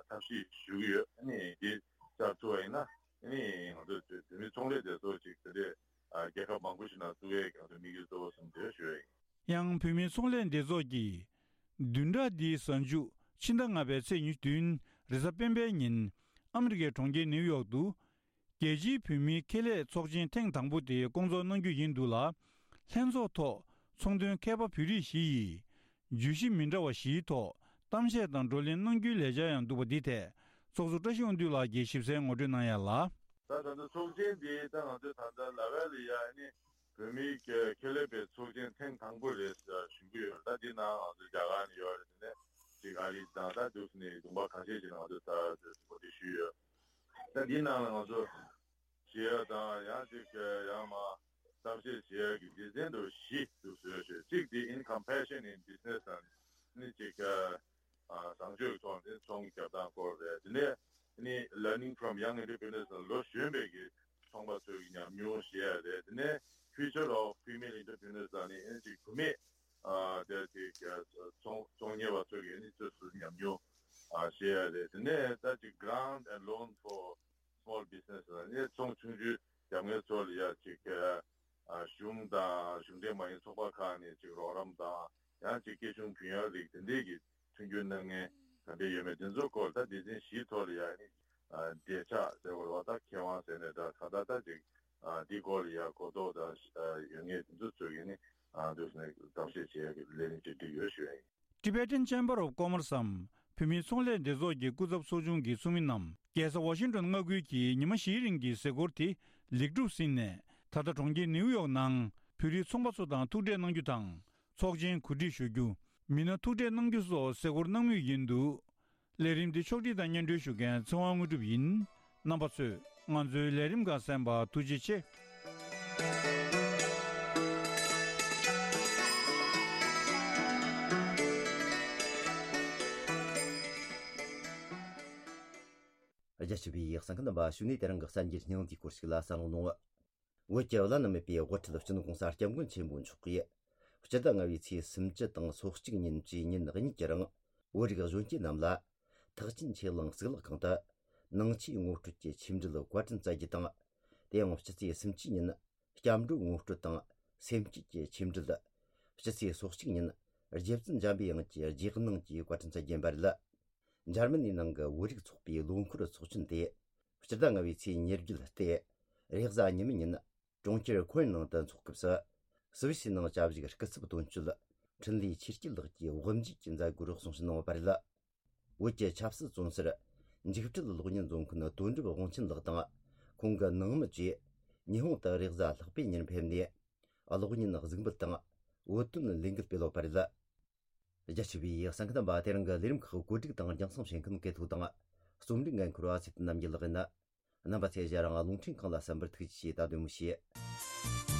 ཐབས་ཤེས་ཞུ་གི་ཡོད། ཨ་ནི་དེ་བཅར་ཐུབ་པ་ཡིན་ན་ཨ་ནི་ང་ཚོ་བོད་མི་ཚོང་ལས་སྡེ་ཚོགས་ཅིག་དེ་འདྲས་རྒྱལ་ཁབ་མང་པོ་ཞིག་ནང་བཙུགས་ཡས་ཀྱི་ང་ཚོ་དམིགས་ཡུལ་གཙོ་བོ་གསུམ་དེ་ཞུ་ཡ་ཡིན། ཡང་བོད་མིའི་ཚོང་ལས་སྡེ་ཚོགས་ཀྱིས་བདུན་ཕྲག་འདིའི་གཟའ་མཇུག་ཕྱི་ཟླ་ལྔ་པའི་ཚེས་ཉི་ཤུ་བདུན་རེས་གཟའ་སྤེན་པའི་ཉིན་ཨ་མི་རི་ཀའི་གྲོང་ཁྱེར་ནིའུ་ཡོག་ཏུ། རྒྱལ་སྤྱིའི་བོད་མིའི་ཁེ་ལས་ཚོགས་ཆེན་ཐེངས་དང་པོ་དེ་སྐོང་ཚོགས་གནང་རྒྱུ་ཡིན་འདུག་ལ། ལྷན་ཚོགས་ཐོག་ཚོགས་འདུའི་མཁས་པ་བོད་རིགས་བཞི་ཡིས། བརྗོད་གཞི་མི་འདྲ་བ་བཞིའི་ཐོག་གཏམ་བཤད་དང་བགྲོ་གླེང་གནང་རྒྱུའི་ལས་འཆར་ཡང་འདུག་པ་འདི་ཐད་ཚོགས་གཙོ་བཀྲ་ཤིས་དབང་འདུས་ལགས་ཀྱིས་ཞིབ་གསལ་ངོ་སྤྲོད་གནང་ཡ་ལ། ད་ད་ལྟ་ཚོགས་ཆེན་འདི་ད་ང་ཚོས་ད་ལྟ་ལ་ཝལ་ལ་ཡ་ཨ་ནི་བོད་མིའི་ཁེ་ལས་པའི་ཚོགས་ཆེན་ཐེངས་དང་པོ་རེད་ཞུ་གི་ཡོད། ད་འདི་ནང་ང་ཚོ་རྒྱ་གར་ནས་ཡོད་རེད། དེ་ནས་ཅིག་ཨ་རི་དང་ད་འདུག་ནས་ལུང་པ་ཁ་ཤས་ཤིག་ནང་ང་ཚོས་ད་གོ་སྒྲིག་ཞུས་ཡོད། ད་འདི་ནང་ལ་ང་ཚོ་བྱེད་ཡ་དང་ཡང་ཅིག་ཡང་མ་གཏམ་བཤད་བྱེད་ཡ་གི་སྡེ་ཚན་དུ་བཞི་འདུག་བཟོས་ཞེས། གཅིག་དེ་In Compassion in Business དང་ནི་ཅིག་ཨ་བཟང་སྤྱོད་ཀྱི་ཐོག་ནས་ཚོང་རྒྱག་སྟངས་སྐོར་རེད། དེ་ནས་ནི་Learning from Young Entrepreneurs ལ་ལོ་གཞོན་པའི་གི་ཚོང་པ་ཚོའི་གི་ཉམས་མྱོང་བཤད་ཡ་རེད། དེ་ནས་Future of Female Entrepreneurs ལ་ནི་ཨེ་ཅིག་བུད་མེད་ཨ་དེ་ཅིག་ཚོང་ཚོང་གཉེར་བ་ཚོའི་གི་ནི་ཚོས་སུ་ཉམས་མྱོང་ཨ་བཤད་ཡ་རེད། དེ་ནས་ད་ཅིག་Grant and Loan for Small Business ལ་ནི་ཚོང་ཆུང་ཆུང་རྒྱབ་མཁན་ཚོ་ལ་ཡ་ཅིག་ཨ་གཞུང་དང་གཞུང་འབྲེལ་མ་ཡིན་ཚོགས་པ་ཁག་ནས་ཅིག་རོགས་རམ་དང་ཡང་ཅིག་སྐྱེད་ཆུང་བུན་གཡར་རིགས་དེ་འདྲས་ཀྱི་མཐུན་འགྱུར་གནང་མཁན་ག་འདྲས་ཡོད་མེད་དེ་ཚོའི་སྐོར་ད་སྡེ་ཚན་བཞིའི་ཐོག་ལ་ཡ་ནི་འབྲེལ་ཆགས་ཟེར་བ་རེད་བ། ད་མཁས་དབང་ཟེར་ནས་ད་ག་ད་ད་ཅིག་འདི་སྐོར་ལ་ཡ་གོ་རྟོགས་ད་ཡོད་མཁན་དེ་ཚོ་ཚོས་ཀྱི་ནི་འདུག་ནས་གཏམ་བཤད་བྱེད་ཡ་གི་ལས་རིམ་ཅིག་བསྒྲིགས་ཡོད་ཞུ་ཡ་ཡིན། Tibetan Chamber of Commerce འམ་བོད་མིའི་ཚོང་ལས་སྡེ་ཚོགས་ཀྱི་སྐུ་ཚབ་ཚོགས་ཆུང་གི་ཚོགས་མི་རྣམས་རྒྱལ་ས་ཝ་ཤིང་ཏོན་མངའ་ཁུལ་གྱི་ཉི་མ་བཞིའི་རིང་གི་གཟིགས་སྐོར་དེ་ལེགས་གྲུབ་ཟིན་ནས། ད་ལྟ་གྲོང་ཁྱེར་ནིའུ་ཡོག་ནང་བོད་རིགས་ཚོང་པ་ཚོ་དང་ཐུག་འཕྲད་གནང་རྒྱུ་དང་། ཚོགས་ཆེན་གོ་སྒྲིག་ཞུ་རྒྱུ། མི་སྣ་ཐུག་འཕྲད་གནང་རྒྱུ་སོགས་གཟིགས་སྐོར་གནང་མུས་ཡིན་འདུག་ལས་རིམ་འདི་ཕྱོགས་སྒྲིག་དང་སྙན་སྒྲོན་ཞུ་མཁན་ཚེ་དབང་དངོས་གྲུབ་ཡིན། རྣམ་པ་ཚོས་ང་ཚོའི་ལས་རིམ་ཁག་གསན་པར་ཐུགས་རྗེ་ཆེ། རྒྱ་ཆེ་བའི་གསན་མཁན་རྣམ་པ། གཞུག་ནས་དེ་རིང་གི་གསར་འགྱུར་སྙིང་བསྡུས་སྐོར་ཞིག་ལ་གསན་རོགས་གནང་། བོད་ཀྱི་བླ་ན་མེད་པའི་དབུ་ཁྲིད་སྤྱི་ནོར་༧གོང་ས་༧སྐྱབས་མགོན་ཆེན་པོ་མཆོག་གིས་སྤྱི་ཟླ་ལྔ་པའི་ཚེས་སུམ་ཅུ་དང་སོ་གཅིག་ཉིན་བཅས་ཉིན་གཉིས་ཀྱི་རིང་བོད་རིགས་གཞོན་སྐྱེས་རྣམས་ལ་ཐེག་ཆེན་ཆོས་གླིང་གཙུག་ལག་ཁང་དུ་ནང་ཆོས་ངོ་སྤྲོད་ཀྱི་ཆོས་འབྲེལ་བཀའ་དྲིན་སྩལ་རྒྱུ་དང་། དེ་ཡང་སྤྱི་ཚེས་སུམ་ཅུ་ཉིན་སྐྱབས་འགྲོ་ངོ་སྤྲོད་དང་སེམས་བསྐྱེད་ཀྱི་ཆོས་འབྲེལ། སྤྱི་ཚེས་སོ་གཅིག་ཉིན་རྗེ་བཙུན་འཇམ་པའི་དབྱངས་ཀྱི་རྗེས་གནང་གི་བཀའ་དྲིན་སྩལ་རྒྱུ་ཡིན་པ་རེད། འཇར་མ་ནིའི་ནང་གི་བོད་རིགས་ཚོགས་པའི་ལོ་འཁོར་ཚོགས་ཆེན་དེ་སྤྱི་ཟླ་ལྔ་པའི་ཚེས་ཉེར་བརྒྱད་སྟེ། རེས་གཟའ་ཉི་མའི་ཉིན་གྲོང་ཁྱེར་ཁོན་ནང་དུ་འཚོགས་སྐབས་སུ། སུད་སི་ནང་བྱ་བཞག་སྐུ་ཚབ་དོན་གཅོད་འཕྲིན་ལས་ཆོས་སྐྱིད་ལགས་ཀྱིས་དབུ་འབྱེད་ཀྱི་མཛད་སྒོར་གསུང་བཤད་གནང་བ་རེད། བོད་ཀྱི་ཆབ་སྲིད་བཙོན་ཟུར་འཇིགས་བྲལ་གློག་བརྙན་བཟོ་མཁན་དོན་གྲུབ་དབང་ཆེན་ལགས་དང་ཁོང་གི་ནང་མི་བཅས་ཉི་ཧོང་དུ་རེས་གཟའ་ལྷག་པའི་ཉིན་ཕེབས་ནས། གློག་བརྙན་གཟིགས་འབུལ་དང་བོད་དོན་ལས་འགུལ་སྤེལ་ཡོད་པ་རེད། རྒྱ་ཆེ་བའི་གསན་མཁན་རྣམ་པ། དེ་རིང་གི་ལས་རིམ་ཁག་གོ་སྒྲིག་དང་རྒྱང་སྲིང་བྱེད་མཁན་སྐལ་ཐོག་དང་། རྩོམ་སྒྲིག་འགན་འཁུར་བ་ཚེ་བརྟན་རྣམ་རྒྱལ་ལགས་ཡིན། རྣམ་པ་ཚོས་ཞལ་རང་རླུང་འཕྲིན་ཁང་ལ་གསན་པར་ཐུགས་རྗེ་ཆེ། ད་དུ་མུ་བཤད།